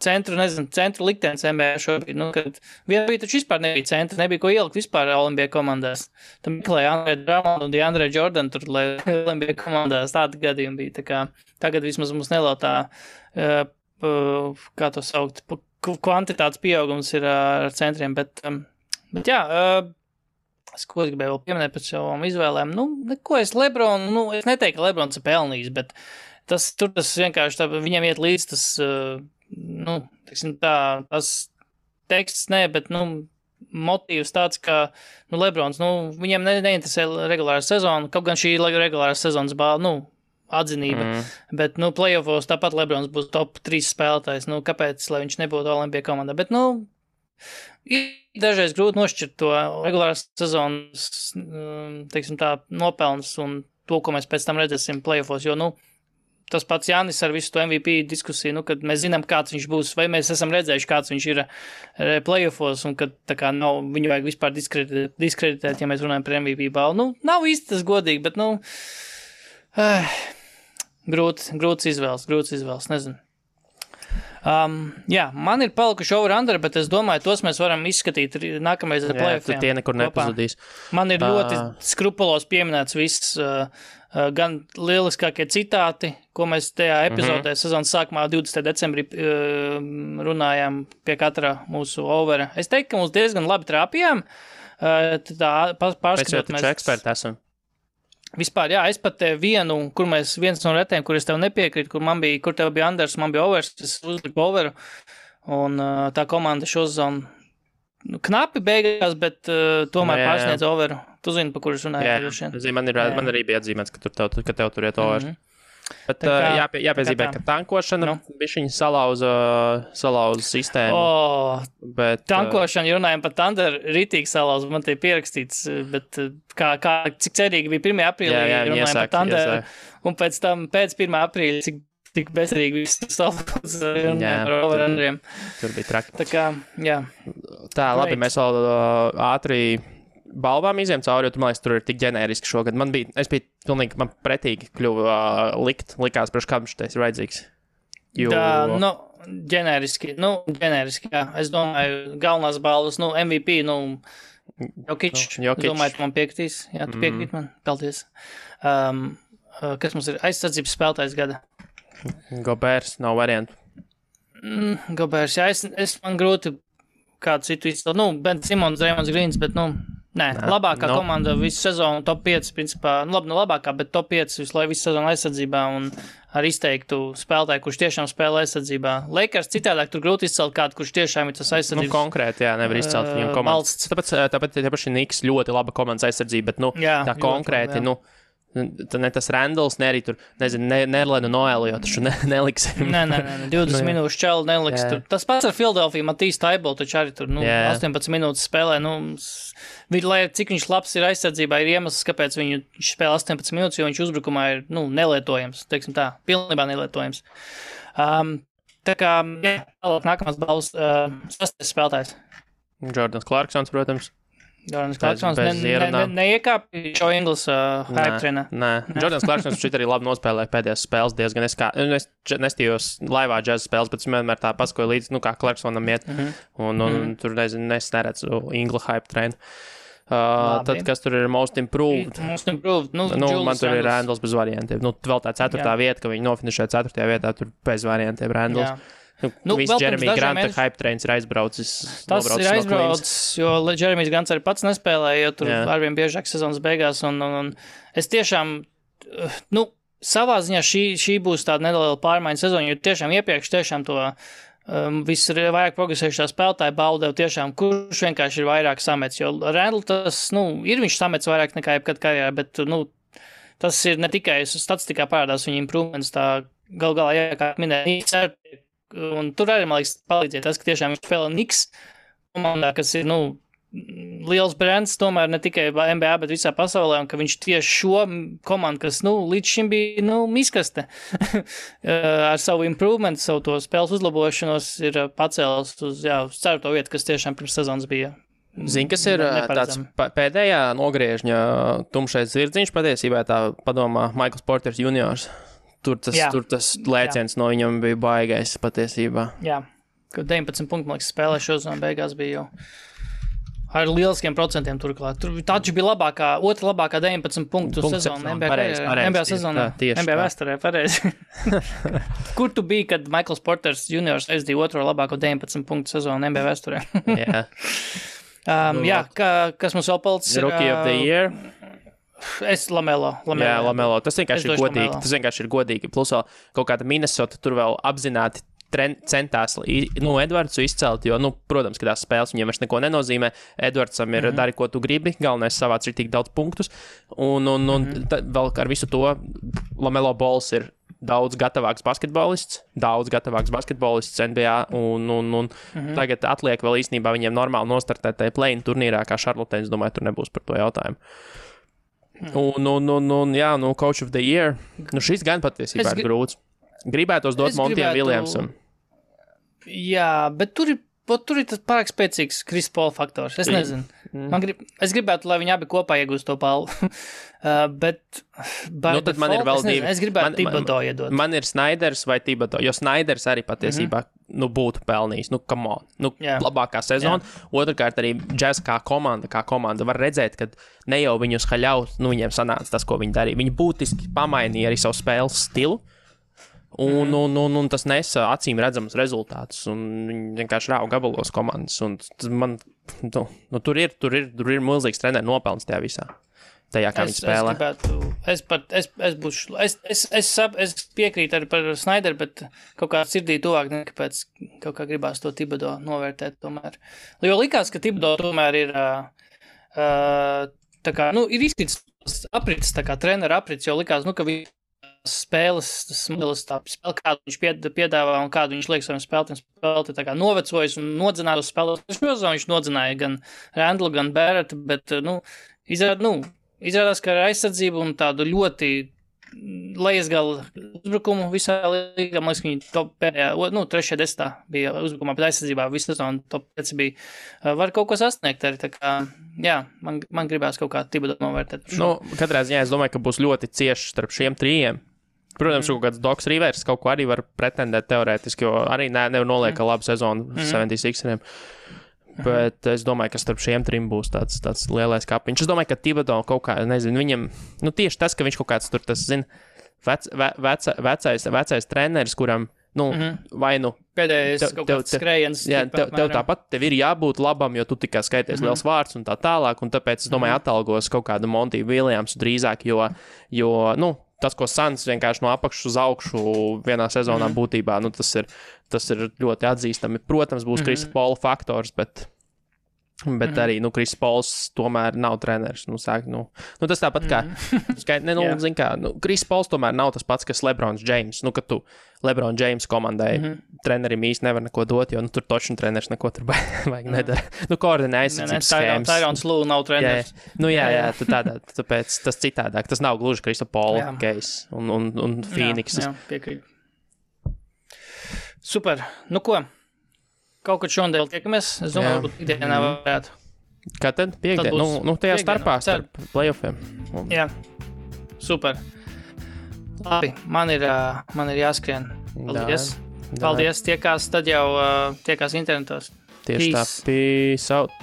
centru liktenis NBA šobrīd, kad vienā bija taču vispār nebija centra, nebija ko ielikt vispār NBA komandās. Tam meklēja Andre Drummond un DeAndre Jordan tur, lai NBA komandās tādi gadījumi bija. Tā kā tagad vismaz mums nelautā, kā to saukt, kvantitātes pieaugums ir ar centriem, bet jā, ko es gribēju vēl pieminēt pēc savām izvēlēm, neko es Lebronu, es neteiktu, ka Lebrons ir pelnījis, bet tas vienkārši tā, viņam iet līdz tas, tas teksts, bet, motīvs tāds, ka, Lebrons, viņiem neinteresē regulāra sezona, kaut gan šī regulāra sezonas atzinība, bet, playoffos tāpat Lebrons būs top 3 spēlētājs, kāpēc, lai viņš nebūtu Olimpija komandā, bet, ir dažreiz grūti nošķirt to regulāras sezonas, nopelns un to, ko mēs pēc tam redzēsim playoffos, jo, tas pats Jānis ar visu to MVP diskusiju, kad mēs zinām, kāds viņš būs, vai mēs esam redzējuši, kāds viņš ir playoffos, un kad tā kā viņu vajag vispār diskreditēt, ja mēs runājam par MVP balvu. Nav īsti tas godīgi, bet, grūts izvēles, nezinu. Jā, man ir palikuši over-under, bet es domāju, tos mēs varam izskatīt nākamreiz ar play-offiem. Tie nekur nepazudīs. Man ir ļoti skrupulos pieminēts viss, gan lieliskākie citāti, ko mēs tajā epizodē sezonas sākumā 20. decembrī runājām pie katra mūsu overa. Es teiktu, ka mums diezgan labi trāpījām. Tā pārskatot mēs eksperti esam. Vispār, jā, es pat vienu, viens no retiem, kur es tev nepiekrītu, kur tev bija Anders, man bija overs, es uzliku overu, un tā komanda šo sezonu knapi beigās, bet tomēr pārsniedz overu. Tu zini, pa kur es runāju? Jā, man arī bija atzīmēts, ka tev tur iet overs. Bet jāpiezīmē, ka tankošana bišķiņi salauza sistēmu. Bet, tankošana, ja runājam par Thunder, ritīgi salauza, man te pierakstīts, bet cik cerīgi bija 1. aprīlī, runājam par Thunder, un pēc tam pēc 1. aprīļa, cik bezcerīgi viss salauza, runājam par overrunneriem. Tur bija traki. Tā kā, jā. Tā, labi, mēs vēl ātri balvām izējām cauri, jo man liekas, tur ir tik ģenēriski šogad. Man pretīgi kļuva likās, priekš kādam šitais ir vajadzīgs. Ģenēriski, jā. Es domāju, galvenās balvas, MVP, Jokic, es domāju, tu man piekrītīs. Jā, tu piekrīt man, paldies. Kas mums ir aizsardzības spēlētājs gada? Gobers, nav variantu. Gobers, jā, man grūti kādu citu izcelt. Ben Simons, Draymond Greens, bet, labākā komanda visu sezonu, top 5, principā, labākā, bet top 5 visu sezonu aizsardzībā un ar izteiktu spēlētāju, kurš tiešām spēlē aizsardzībā. Lakers citādāk tur grūti izcelt kādu, kurš tiešām ir tas aizsardzības. Konkrēti, jā, nevar izcelt viņam komandas. Tāpēc Niks ļoti laba komandas aizsardzība, bet, tā konkrēti, ne tas Randalls, ne arī tur, Nerlenu Noelu, jo taču neliksim. Nē, 20 minūšu čalu neliks. Tas pats ar Philadelphia, Matīs Taibol, taču arī tur, 18 minūtes spēlē, lai cik viņš labs ir aizsardzībā, ir iemesls, kāpēc viņš spēlē 18 minūtes, jo viņš uzbrukumā ir, nelietojams, teiksim tā, pilnībā nelietojams. Tā kā, nākamās balvas, 6. spēlētājs. Jordans Clarksons, protams. Jordans Clarksons neiekāpja šo Inglis hype trenā. Nē, Jordans Clarksons šeit arī labi nospēlēja pēdējās spēles diezgan. Es nestījos laivā džeza spēles, bet es vienmēr tā paskoju līdzi, kā Clarksonam iet. Un tur, es neredzu Inglis hype trenu. Tad, kas tur ir most improved? Most improved, man tur ir Randalls bez variantiem. Vēl tā 4. vieta, ka viņi nofinišē 4. vietā, tur bez variantiem Randalls. Viss Jeremy Granta hype trains ir aizbraucis. Tas ir aizbraucis, jo Jeremijs Grants arī pats nespēlēja, jo tur arvien biežāk sezonas beigās. Un es tiešām, savā ziņā šī būs tāda neliela pārmaiņa sezona, jo tiešām iepriekš to viss ir vairāk progresējušā spēlētāja baudēv tiešām, kurš vienkārši ir vairāk samets. Jo Randall tas, ir viņš samets vairāk nekā jebkad karjerā, bet, tas ir ne tikai statistikā parādās viņa improvements, tā galā, kā minēja, un tur arī, man liekas, palīdziet tas, ka tiešām viņš spēlē Knicks komandā, kas ir, liels brands, tomēr ne tikai NBA, bet visā pasaulē, un ka viņš tieši šo komandu, kas, līdz šim bija, miskaste, ar savu improvement, savu to spēles uzlabošanos, ir pacēlis uz 4. vietu, kas tiešām pirms sezonas bija. Zini, kas ir tāds pēdējā nogriežņa tumšais zirdziņš, patiesībā tā padomā Michaels Porters juniors. Tur tas lēciens no viņam bija baigais patiesībā. Jā, ka 19 punktu, man liekas, spēlē šo zonu beigās bija jau ar lieliskiem procentiem turklāt. Tur taču bija otra labākā 19 punktu sezona NBA sezonā. NBA vēsturē, pareizi. Kur tu biji, kad Michaels Porters juniors aizdīja otro labāko 19 punktu sezonu NBA vēsturē? Jā. Kas mums vēl palicis? Rookie of the Year. Es Lamelo. Jā, Lamelo. Tas vienkārši ir godīgi. Tas vienkārši ir godīgi. Plus vēl kaut kāda Minnesota tur vēl apzināti centās Edvardsu izcelt, jo, protams, ka tās spēles viņiem vairs neko nenozīmē. Edvardsam ir dari, ko tu gribi, galvenais savāc ir tik daudz punktus. Un vēl ar visu to Lamelo Balls ir daudz gatavāks basketbolists NBA, un tagad atliek vēl īstenībā viņiem normāli nostartēt tajā play-in turnīrā, kā Charlotte, es domāju, tur nebūs par to jautājumu. Coach of the Year. Šis gan patiesībā ir grūts. Gribētos dot Montijam Williamsam. Jā, bet tur ir tas pārāk spēcīgs Chris Paul faktors. Es nezinu. Es gribētu, lai viņi abi kopā iegūst to balvu. Bet tad man ir vēl divi. Es gribētu Thibodeau iedot. Man ir Sneiders vai Thibodeau, jo Sneiders arī patiesībā būtu pelnījis. Come on. Labākā sezona. Otrkārt arī Jazz kā komanda var redzēt, ka ne jau viņus haļaut, viņiem sanāca tas, ko viņi darīja. Viņi būtiski pamainīja arī savu spēles stilu. Un tas nesa acīm redzamus rezultātus, un viņi vienkārši rāva gabalos komandas, un man, tur ir milzīgs treneru nopelns tajā visā, tajā, kā viņi spēlē. Es piekrītu arī par Snyderu, bet kaut kā sirdī tuvāk, nekāpēc kaut kā gribās to Thibodeau novērtēt tomēr. Jo likās, ka Thibodeau tomēr ir, tā kā, ir izkrits aprits, tā kā treneru aprits, jo likās, ka viņi spēles, tas modelis, tā spēle, kādu viņš piedāvā un kādu viņš liek saviem spēlētājiem, tā kā novecojis un nodzināja uz spēlētājiem. Viņš nodzināja gan Randlu, gan Barrettu, bet, izrādās, ka ar aizsardzību un tādu ļoti lejasgala uzbrukumu visā līgā, man liekas, viņi pēdējā, 3.10. bija uzbrukumā, bet aizsardzībā visu sezonu top 5 bija, var kaut ko sasniegt arī, tā kā, man gribās kaut kā Thibodeau novērtēt. Katrā ziņā es domāju, ka būs ļoti cieši starp šiem trijiem. Protams, kaut kāds Doks Rivers kaut ko arī var pretendēt teorētiski, jo arī nevar noliek labu sezonu 76eriem. Bet es domāju, ka starp šiem trim būs tāds lielais kapiņš. Es domāju, ka Thibodeau kaut kā, nezinu, viņam, tieši tas, ka viņš kaut kāds tur, tas, vecais treneris, kuram, vai pēdējais kaut kāds skrējiens. Jā, tev tāpat, tev ir jābūt labam, jo tu tikai skaities liels vārds un tā tālāk, un tāpēc, es domāju, atalgos kaut kādu Monty Williamsu drīzāk, jo tas, ko Suns vienkārši no apakšas uz augšu vienā sezonā būtībā, tas ir ļoti atzīstami. Protams, būs Krisa Paula faktors, bet arī, Kris Pauls tomēr nav treneris. Tas tāpat kā, zin kā, Kris Pauls tomēr nav tas pats, kas LeBrons James. Kad tu LeBron James komandai trenerim īsti nevar neko dot, jo tur točni treneris neko tur vajag nedara. Koordinē aizsardzības schēmas. Tyrons Lue nav treneris. Jā, tāpēc tas citādāk. Tas nav gluži Krisa Paula case un Phoenix. Jā, piekrīt. Super. Ko? Kaut kad šodien tiekamies. Es domāju, varbūt ikdienā varētu. Kā tad? Piekdien? Tajā starpā starp playoffiem. Jā. Super. Labi, man ir jāskrien. Paldies. Paldies. Tiekās tad jau, tiekās internetos. Tieši tā. Peace out.